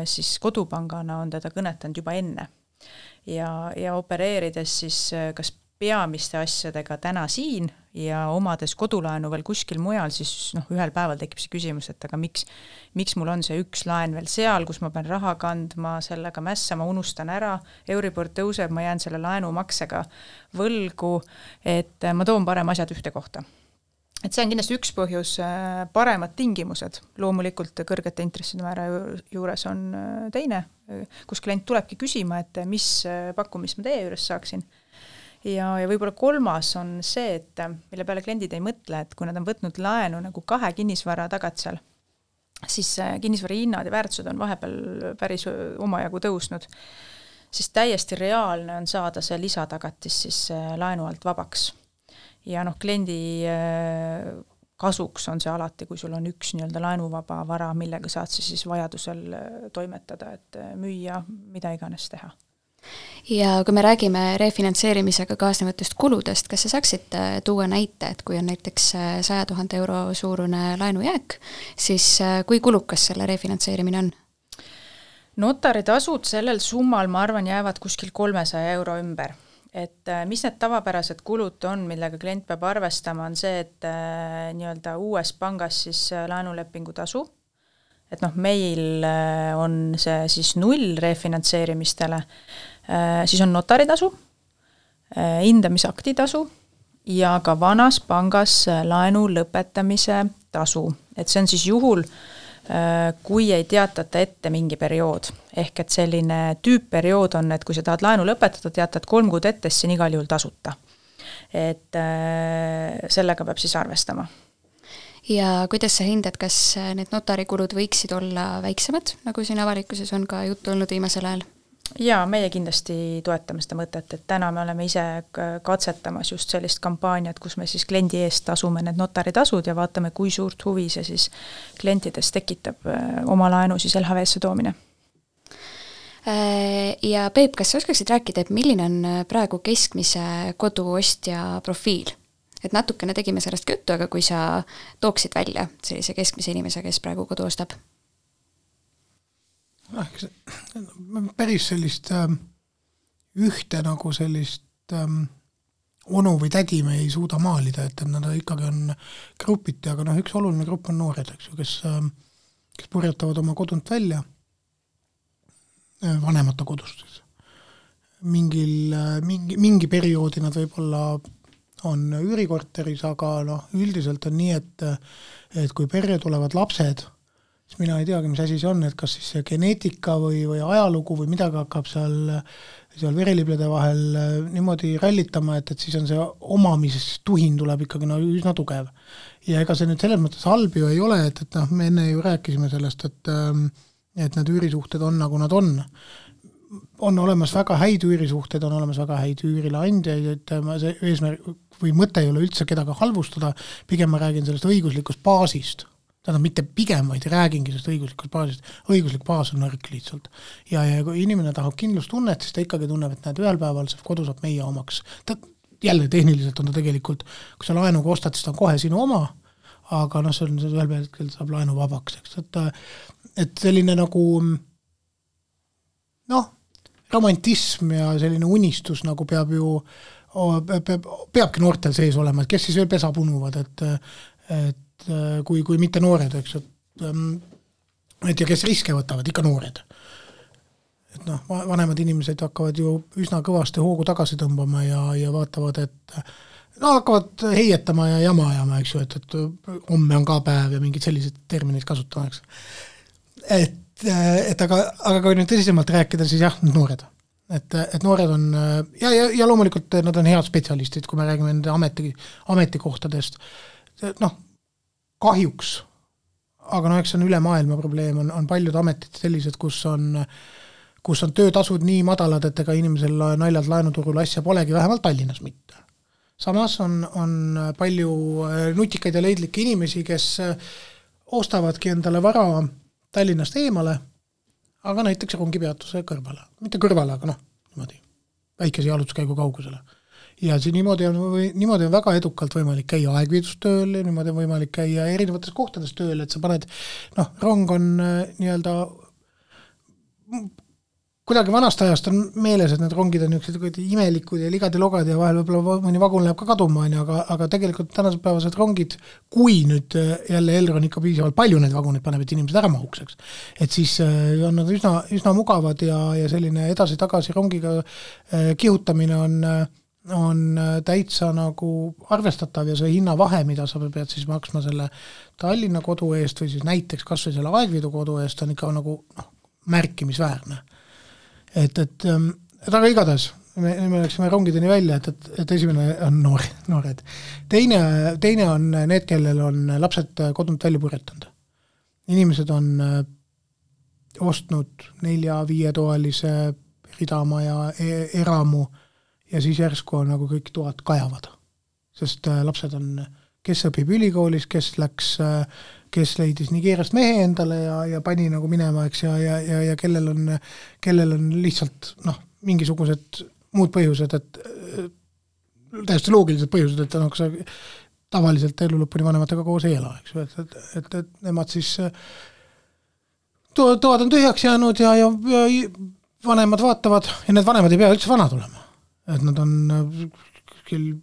siis kodupangana on teda kõnetanud juba enne. Ja opereerides siis kas peamiste asjadega täna siin ja omades kodulaenu veel kuskil mujal, siis ühel päeval tekib see küsimus, et aga miks mul on see üks laen veel seal, kus ma pean raha kandma, sellega mässama, unustan ära, Euribor tõuseb, ma jään selle laenumaksega võlgu, et ma toon parem asjad ühte kohta. Et see on kindlasti üks põhjus, paremad tingimused. Loomulikult kõrgete intresside määra juures on teine, kus klient tulebki küsima, et mis pakkumist ma teie juures saaksin. Ja võib-olla kolmas on see, et mille peale kliendid ei mõtle, et kui nad on võtnud laenu nagu 2 kinnisvara tagatsal, siis kinnisvara hinnad ja väärtused on vahepeal päris omajagu tõusnud, siis täiesti reaalne on saada see lisatagatis siis laenu alt vabaks. Ja kliendi kasuks on see alati, kui sul on üks nii-öelda laenuvaba vara, millega saad siis vajadusel toimetada, et müüa, mida iganes teha. Ja kui me räägime refinantseerimisega kaasnevatest kuludest, kas sa saaksid tuua näite, et kui on näiteks 100 000 euro suurune laenujääk, siis kui kulukas selle refinantseerimine on? Notaritasud sellel summal, ma arvan, jäävad kuskil 300 euro ümber. Et mis need tavapärased kulud on, millega klient peab arvestama, on see, et nii-öelda uues pangas siis laenulepingu tasu, et meil on see siis 0 refinantseerimistele, siis on notaritasu, hindamisakti tasu ja ka vanas pangas laenu lõpetamise tasu. Et see on siis juhul, kui ei teatata ette mingi periood. Ehk et selline tüüpperiood on, et kui sa tahad laenu lõpetada, teatad 3 kuud ette, siis on igal juhul tasuta. Et sellega peab siis arvestama. Ja kuidas sa hindad, kas need notarikulud võiksid olla väiksemad, nagu siin avalikkuses on ka juttu olnud viimasel ajal? Jaa, meie kindlasti toetame seda mõtet, et täna me oleme ise katsetamas just sellist kampaaniat, kus me siis kliendi eest tasume need notaritasud ja vaatame, kui suurt huvi see siis klientides tekitab oma laenu siis LHV-sse toomine. Ja Peep, kas sa oskaksid rääkida, et milline on praegu keskmise koduostja profiil? Et natukene tegime sellest juttu, aga kui sa tooksid välja sellise keskmise inimese, kes praegu kodu ostab? Päris sellist ühte nagu sellist onu või tädi me ei suuda maalida, et nad ikkagi on grupiti, aga üks oluline grupp on noored, kes purjetavad oma kodunt välja, vanemate kodust. Mingi perioodi nad võib-olla on üürikorteris, aga üldiselt on nii, et kui perre tulevad lapsed, siis mina ei teagi, mis asi see on, et kas siis see geneetika või ajalugu või midagi hakkab seal vereliblede vahel niimoodi rallitama, et siis on see omamistuhin tuleb ikkagi üsna tugev. Ja ega see nüüd selles mõttes halb ju ei ole, et me enne ju rääkisime sellest, et need üürisuhted on nagu nad on. On olemas väga häid üürisuhted, on olemas väga häid üürileandjaid, et see eesmärk või mõte ei ole üldse kedagi halvustada, pigem ma räägin sellest õiguslikust baasist. Tähendab mitte pigem, vaid räägingi sellest õiguslikust baasist. Õiguslik baas on nõrk lihtsalt. Ja kui inimene tahab kindlustunnet, siis ta ikkagi tunneb, et ühel päeval see kodu saab meie omaks. Jälle tehniliselt on ta tegelikult, kui sa laenuga ostad, siis ta on kohe sinu oma, aga see on ühel päeval saab laenu vabaks. Et selline nagu romantism ja selline unistus nagu peabki noortel sees olema, et kes siis veel pesa punuvad, et kui mitte noored, eks, et ja kes riske võtavad, ikka noored. Et vanemad inimesed hakkavad ju üsna kõvasti hoogu tagasi tõmbama ja vaatavad, et hakkavad heietama ja jama ajama, eks ju, et homme on ka päev ja mingid sellised terminid kasutamatakse. Aga kui nüüd tõsisemalt rääkida, siis jah, noored. Et noored on, ja loomulikult nad on head spetsialistid, kui me räägime nende ametikohtadest. Kahjuks, aga eks on üle maailma probleem, on paljud ametid sellised, kus on töötasud nii madalad, et ega inimesel naljalt laenuturul asja polegi, vähemalt Tallinnas mitte. Samas on palju nutikaid ja leidlikke inimesi, kes ostavadki endale vara Tallinnast eemale, aga näiteks rongipeatuse kõrvale. Mitte kõrvale, aga niimoodi, väikese jalutuskäigu kaugusele. Ja see niimoodi on väga edukalt võimalik käia aegviidustööl, niimoodi on võimalik käia erinevates kohtades tööl, et sa paned, rong on nii-öelda kuidagi vanast ajast on meeles, et need rongid on niisugused imelikud ja ligad ja logad ja vahel võib-olla mõni vagun läheb ka kaduma, aga tegelikult tänased päevased rongid, kui nüüd jälle Elron ikka piisavalt palju neid vaguneid paneb, et inimesed ära mahukseks, et siis on nad üsna mugavad ja selline edasi-tagasi rongiga kihutamine on täitsa nagu arvestatav ja see hinnavahe, mida sa pead siis maksma selle Tallinna kodu eest või siis näiteks kas või selle Aegviidu kodu eest on ikka nagu märkimisväärne. Aga igatahes me läksime rongideni välja, et esimene on noored. Teine on need, kellel on lapsed kodunt välja purjetanud. Inimesed on ostnud 4-5 toalise ridamaja eramu ja siis järsku on nagu kõik toad kajavad. Sest lapsed on, kes õpib ülikoolis, kes leidis Nigeeriast mehe endale ja pani nagu minema, eks, ja kellel on lihtsalt mingisugused muud põhjused, et täiesti loogilised põhjused, et nagu sa tavaliselt elu lõpuni vanematega koos ei ela, eks, et nemad siis toad on tühjaks jäänud ja vanemad vaatavad ja need vanemad ei pea üldse vanad olema, et nad on küll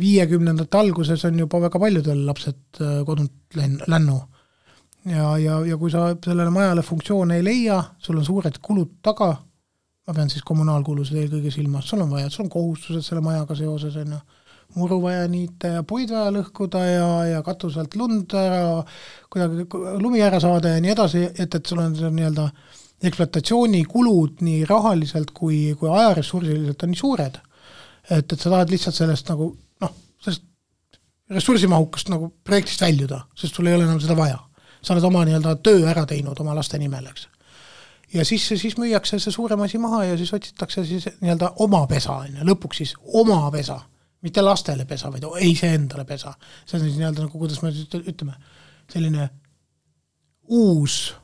50. alguses on juba väga paljudel lapsed kodunt lännu ja kui sa sellele majale funktsioone ei leia, sul on suured kulud taga, ma pean siis kommunaalkulused eelkõige silmas, sul on kohustused selle majaga seoses, muru vaja niita ja puid vaja lõhkuda ja katuselt lund ära, kuidagi lumi ära saada ja nii edasi, et sul on see nii-öelda ekspluatatsioonikulud nii rahaliselt kui ajaressursiliselt on nii suured, et sa tahad lihtsalt sellest nagu sellest ressursimahukast nagu projektist väljuda, sest sul ei ole enam seda vaja. Sa oled oma nii-öelda töö ära teinud oma laste nimel, eks. Ja siis müüakse see suurem asi maha ja siis otsitakse siis nii-öelda oma pesa, lõpuks siis oma pesa, mitte lastele pesa, vaid ei see endale pesa. See on siis nii-öelda nagu, kuidas me ütleme, selline uus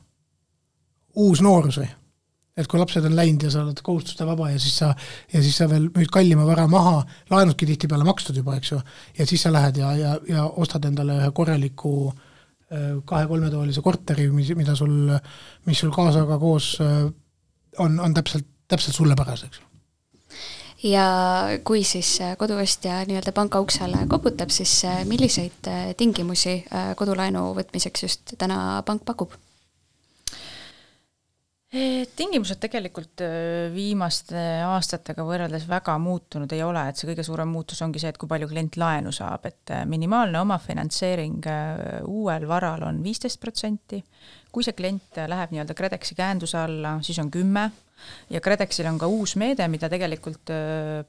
noorus või. Et kui lapsed on läinud ja sa oled kohustuste vaba ja siis sa veel müüd kallima vara maha, laenudki tihti peale makstud juba, eks ju, ja siis sa lähed ja ostad endale ühe korraliku 2-3 toolise korteri, mis sul kaasaga koos on täpselt sulle päraseks. Ja kui siis koduostja nii-öelda panka uksele koputab, siis milliseid tingimusi kodulaenu võtmiseks just täna pank pakub? Tingimused tegelikult viimaste aastatega võrreldes väga muutunud ei ole, et see kõige suurem muutus ongi see, et kui palju klient laenu saab, et minimaalne omafinantseering uuel varal on 15%, kui see klient läheb nii-öelda KredExi käenduse alla, siis on 10% ja KredExil on ka uus meede, mida tegelikult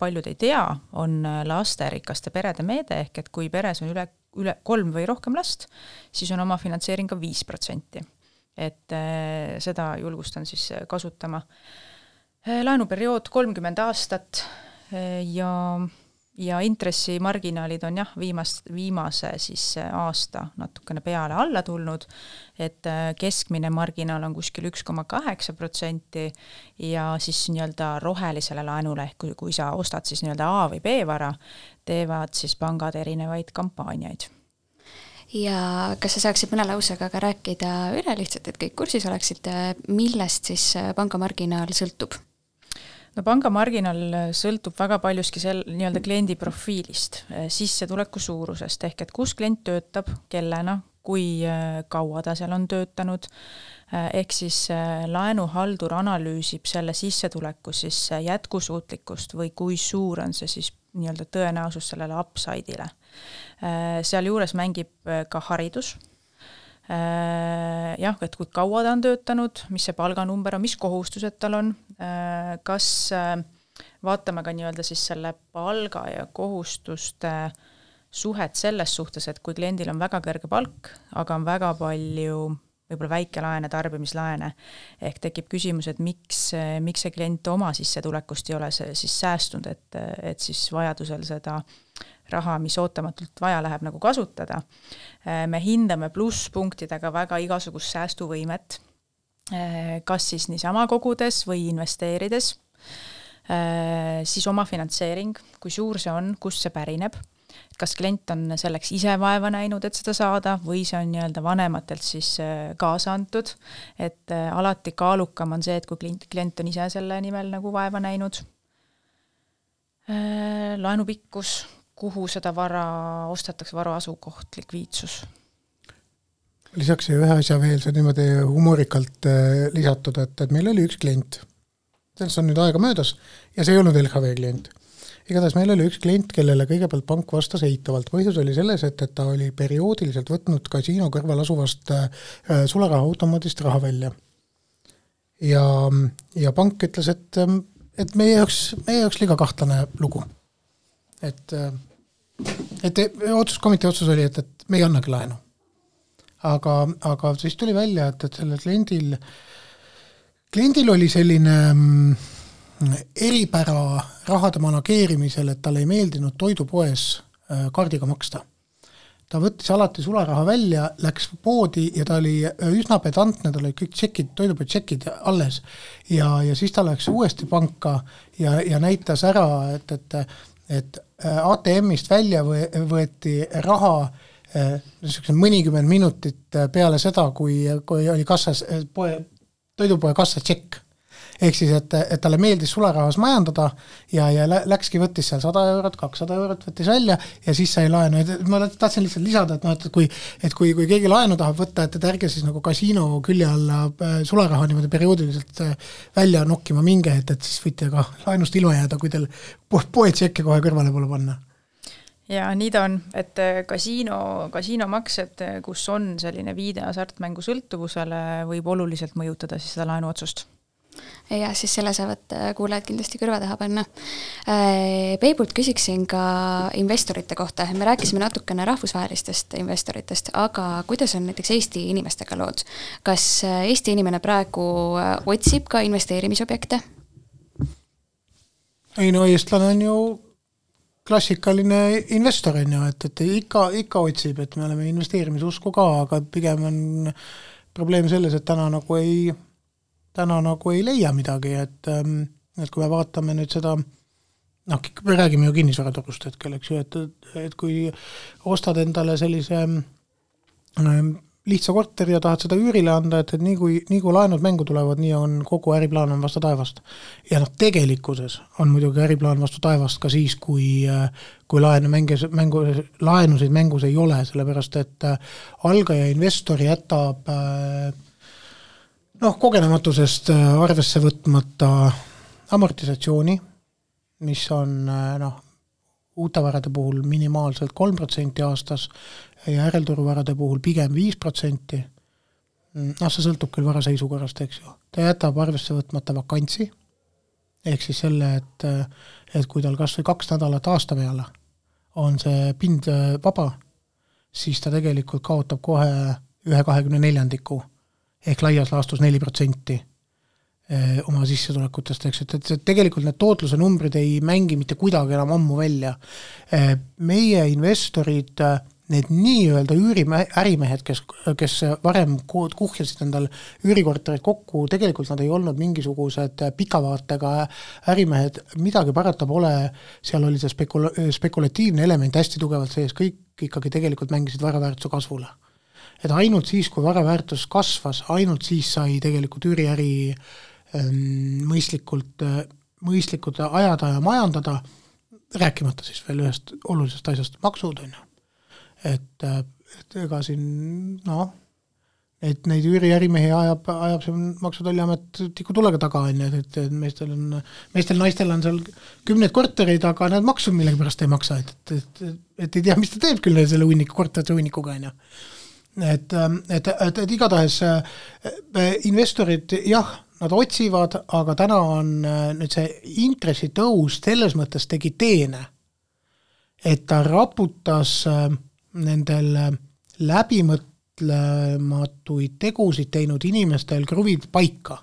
paljud ei tea, on lasterikaste perede meede, ehk et kui peres on üle 3 või rohkem last, siis on omafinantseering ka 5%. Et seda julgustan siis kasutama. Laenuperiood 30 aastat ja intressimarginaalid on viimase siis aasta natukene peale alla tulnud, et keskmine marginaal on kuskil 1,8% ja siis nii-öelda rohelisele laenule, kui sa ostad siis nii-öelda A või B vara, teevad siis pangad erinevaid kampaaniaid. Ja kas sa saaksid mõne lausega ka rääkida üle lihtsalt, et kõik kursis oleksid, millest siis pangamarginaal sõltub? No pangamarginaal sõltub väga paljuski nii-öelda kliendi profiilist, sissetuleku suurusest, ehk et kus klient töötab, kellena, kui kaua ta seal on töötanud, ehk siis laenuhaldur analüüsib selle sissetuleku siis jätkusuutlikkust või kui suur on see siis nii-öelda tõenäosus sellele upside'ile. Seal juures mängib ka haridus. Et kui kaua ta on töötanud, mis see palganumber on, mis kohustused tal on, kas vaatame ka nii-öelda siis selle palga ja kohustuste suhet selles suhtes, et kui kliendil on väga kõrge palk, aga on väga palju võib-olla väikelaene, tarbimislaene, ehk tekib küsimus, et miks see klient oma sissetulekust ei ole siis säästunud, et siis vajadusel seda raha, mis ootamatult vaja läheb nagu kasutada. Me hindame plusspunktidega väga igasugust säästuvõimet, kas siis niisama kogudes või investeerides, siis oma finantseering, kui suur see on, kust see pärineb, kas klient on selleks ise vaeva näinud, et seda saada, või see on nii-öelda vanematelt siis kaasa antud, et alati kaalukam on see, et kui klient on ise selle nimel nagu vaeva näinud. Laenu pikkus, kuhu seda vara ostetakse, vara asukoht, likviidsus. Lisaks ühe asja veel, see niimoodi humorikalt lisatud, et meil oli üks klient, sellest on nüüd aega möödas, ja see ei olnud LHV klient. Igatahes meil oli üks klient, kellele kõigepealt pank vastas eitavalt. Põhjus oli selles, et ta oli perioodiliselt võtnud kasiino kõrval asuvast sularaha automaadist raha välja. Ja pank ütles, et meie jaoks liiga kahtlane lugu. Et otsuskomitee otsus oli, et me ei annagi laenu. Aga siis tuli välja, et sellel kliendil oli selline eripära rahade manageerimisel, et talle ei meeldinud toidupoes kaardiga maksta. Ta võttis alati sularaha välja, läks poodi ja ta oli üsna pedantne, tal oli kõik tšekid, toidupoed tšekid alles ja siis ta läks uuesti panka ja näitas ära, et ATM-ist välja võeti raha mõnikümmend minutit peale seda, kui oli kassas, toidupoe kassa tšekk. Ehk siis, et talle meeldis sularahas majandada ja läkski võttis seal 100 eurot, 200 eurot võttis välja ja siis sai laenu. Ma tahtsin lihtsalt lisada, et kui keegi laenu tahab võtta, et ärge siis nagu kasiino külje alla sularaha niimoodi perioodiliselt välja nokkima minge, et siis võite ka laenust ilma jääda, kui teil poetšekke kohe kõrvale pole panna. Ja nii ta on, et kasiinomaksed, kus on selline viide hasartmängu sõltuvusele, võib oluliselt mõjutada siis seda laenuotsust. Ja siis selle saavad kuulajad kindlasti kõrva taha panna. Peibult küsiksin ka investorite kohta. Me rääkisime natukene rahvusvahelistest investoritest, aga kuidas on näiteks Eesti inimestega lood? Kas Eesti inimene praegu otsib ka investeerimisobjekte? Ei no, eestlane on ju klassikaline investor, et ikka otsib, et me oleme investeerimisusku ka, aga pigem on probleem selles, et täna nagu ei leia midagi, et kui me vaatame nüüd seda, me räägime ju kinnisvaraturust hetkel, eks ju, et kui ostad endale sellise lihtsa korteri ja tahad seda üürile anda, et nii kui laenud mängu tulevad, nii on kogu äriplaan on vastu taevast. Ja tegelikkuses on muidugi äriplaan vastu taevast ka siis, kui laenusid mängus ei ole, sellepärast et algaja investori jätab kogenematusest arvesse võtmata amortisatsiooni, mis on uute varade puhul minimaalselt 3% aastas ja järelturuvarade puhul pigem 5%. See sõltub küll vara seisukorrast, eks ju. Ta jätab arvesse võtmata vakantsi, ehk siis selle, et kui tal kas või 2 nädalat aasta peale on see pind vaba, siis ta tegelikult kaotab kohe 1/24 ehk laias laastus 4% oma sissetulekutest, eks, et tegelikult need tootluse numbrid ei mängi mitte kuidagi enam ammu välja. Meie investorid, need nii-öelda ärimehed, kes varem kuhjasid endal üürikorterid kokku, tegelikult nad ei olnud mingisugused pikavaatega ärimehed, midagi parata pole, seal oli see spekulatiivne element hästi tugevalt sees, kõik ikkagi tegelikult mängisid varaväärtuse kasvule. Et ainult siis, kui varaväärtus kasvas, ainult siis sai tegelikult üüriäri mõistlikult ajada ja majandada, rääkimata siis veel ühest olulisest asjast, maksud on ju. Et ega siin, neid üüriärimehi ajab see maksutolliamet tiku tulega taga, et meestel naistel on seal 10 kortereid, aga need maksud millegi pärast ei maksa, et ei tea, mis ta teeb küll selle korterite unnikuga, on ju. Et igatahes investorid, jah, nad otsivad, aga täna on nüüd see intressitõus selles mõttes tegi teene, et ta raputas nendel läbimõtlematuid tegusid teinud inimestel kruvid paika.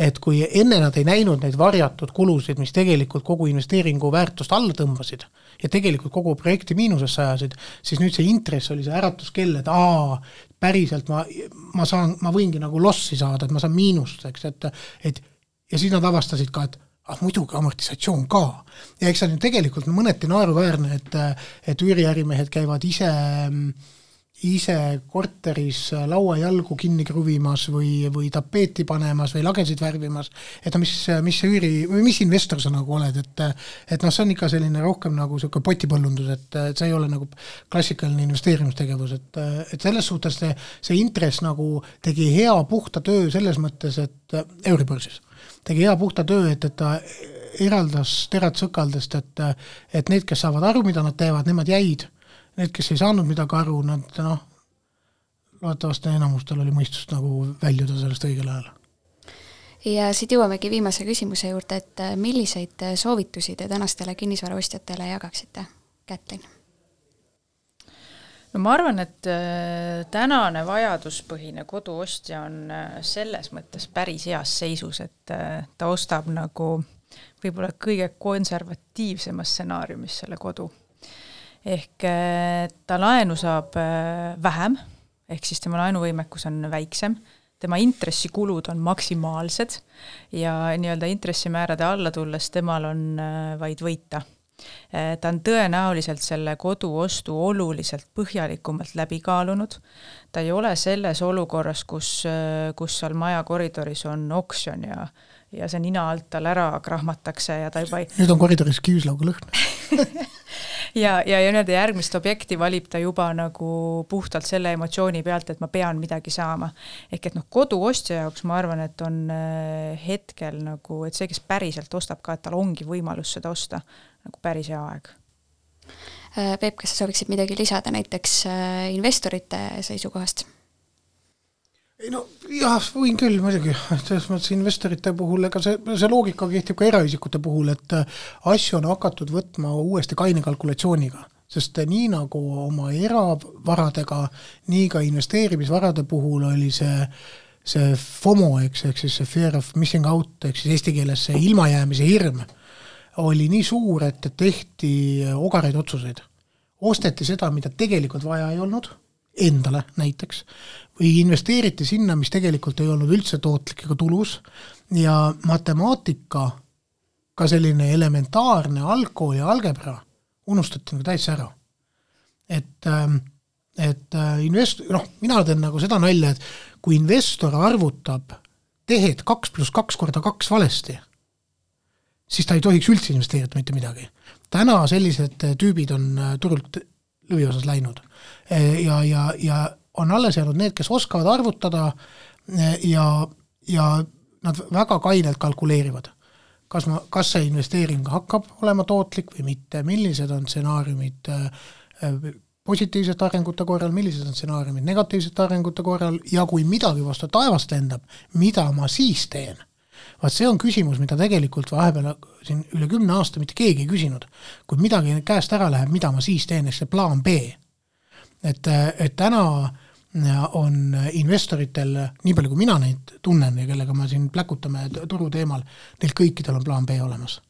Et kui enne nad ei näinud neid varjatud kulusid, mis tegelikult kogu investeeringu väärtust alla tõmbasid ja tegelikult kogu projekti miinusesse ajasid, siis nüüd see intress oli see äratuskell, et päriselt ma võingi nagu lossi saada, et ma saan miinust, eks, et ja siis nad avastasid ka, et muidugi amortisatsioon ka. Ja eks see on tegelikult mõneti naeruväärne, et üüriärimehed käivad ise korteris lauajalgu kinni kruvimas või tapeeti panemas või lagesid värvimas, et mis investor sa nagu oled, et see on ikka selline rohkem nagu selline potipõllundus, et see ei ole nagu klassikaline investeerimistegevus, et selles suhtes see intress nagu tegi hea puhta töö selles mõttes, et Euribörsis tegi hea puhta töö, et ta eraldas terad sõkaldest, et need, kes saavad aru, mida nad teevad, nemad jäid. Need, kes ei saanud midagi aru, nad loodetavasti enamustel oli mõistust nagu väljuda sellest õigel ajal. Ja siit jõuamegi viimase küsimuse juurde, et milliseid soovitusi te tänastele kinnisvaraostjatele jagaksite, Kätlin? No ma arvan, et tänane vajaduspõhine koduostja on selles mõttes päris heas seisus, et ta ostab nagu võib-olla kõige konservatiivsemas stsenaariumis selle kodu. Ehk ta laenu saab vähem, ehk siis tema laenuvõimekus on väiksem, tema intressikulud on maksimaalsed ja nii-öelda intressimäärade alla tulles temal on vaid võita. Ta on tõenäoliselt selle koduostu oluliselt põhjalikumalt läbi kaalunud. Ta ei ole selles olukorras, kus seal maja koridoris on oksjon ja see nina alt tal ära krahmatakse ja ta juba Nüüd on koridoris küüslauga lõhn. ja nii-öelda järgmist objekti valib ta juba nagu puhtalt selle emotsiooni pealt, et ma pean midagi saama. Ehk et koduostja jaoks ma arvan, et on hetkel nagu, et see, kes päriselt ostab ka, et tal ongi võimalus seda osta nagu päris hea aeg. Peep, kas sa sooviksid midagi lisada näiteks investorite seisukohast? Jah, võin küll muidugi, selles mõttes investorite puhul, ega see loogika kehtib ka eraisikute puhul, et asju on hakatud võtma uuesti kaine kalkulatsiooniga, sest nii nagu oma eravaradega, nii ka investeerimisvarade puhul oli see FOMO, ehk siis see fear of missing out, ehk siis eesti keeles see ilmajäämise hirm, oli nii suur, et tehti ogareid otsuseid. Osteti seda, mida tegelikult vaja ei olnud, endale näiteks, või investeeriti sinna, mis tegelikult ei olnud üldse tootlik ega tulus, ja matemaatika, ka selline elementaarne algkooli algebra, unustati nagu täitsa ära. Et mina teen nagu seda nalja, et kui investor arvutab tehed 2 + 2 × 2 valesti, siis ta ei tohiks üldse investeerida mitte midagi. Täna sellised tüübid on turult lõviosas läinud. Ja on alles jäänud need, kes oskavad arvutada ja nad väga kainelt kalkuleerivad. Kas see investeering hakkab olema tootlik või mitte, millised on stsenaariumid positiivsete arengute korral, millised on stsenaariumid negatiivsete arengute korral ja kui midagi vastu taevast lendab, mida ma siis teen? Vaat see on küsimus, mida tegelikult vahepeal siin üle 10 aasta mitte keegi ei küsinud. Kui midagi käest ära läheb, mida ma siis teen, see plaan B. Et täna on investoritel, nii palju kui mina neid tunnen ja kellega ma siin pläkutame turu teemal, neil kõikidel on plaan B olemas.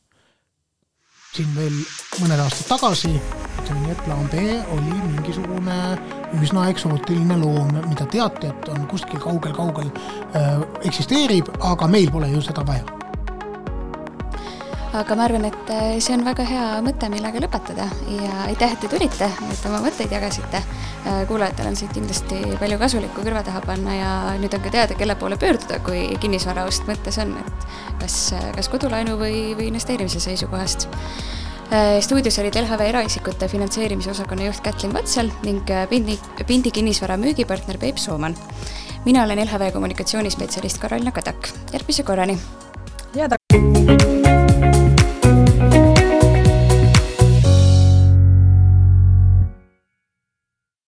Siin veel mõned aastad tagasi, ütleme, et plaan B oli mingisugune üsna eksootiline loom, mida teate, et on kuskil kaugel eksisteerib, aga meil pole ju seda vaja. Aga ma arvan, et see on väga hea mõte, millega lõpetada ja aitäh, et te tulite, et oma mõtteid jagasite. Kuulajatel on siit kindlasti palju kasulikku kõrva taha panna ja nüüd on ka teada, kelle poole pöörduda, kui kinnisvaraost mõttes on, et kas kodulaenu või investeerimise seisukohast. Stuudios olid LHV eraisikute finantseerimise osakonna juht Kätlin Vatsal ning Pindi kinnisvara müügipartner Peep Sooman. Mina olen LHV kommunikatsioonispetsialist Karolina Kadak. Järgmise korrani!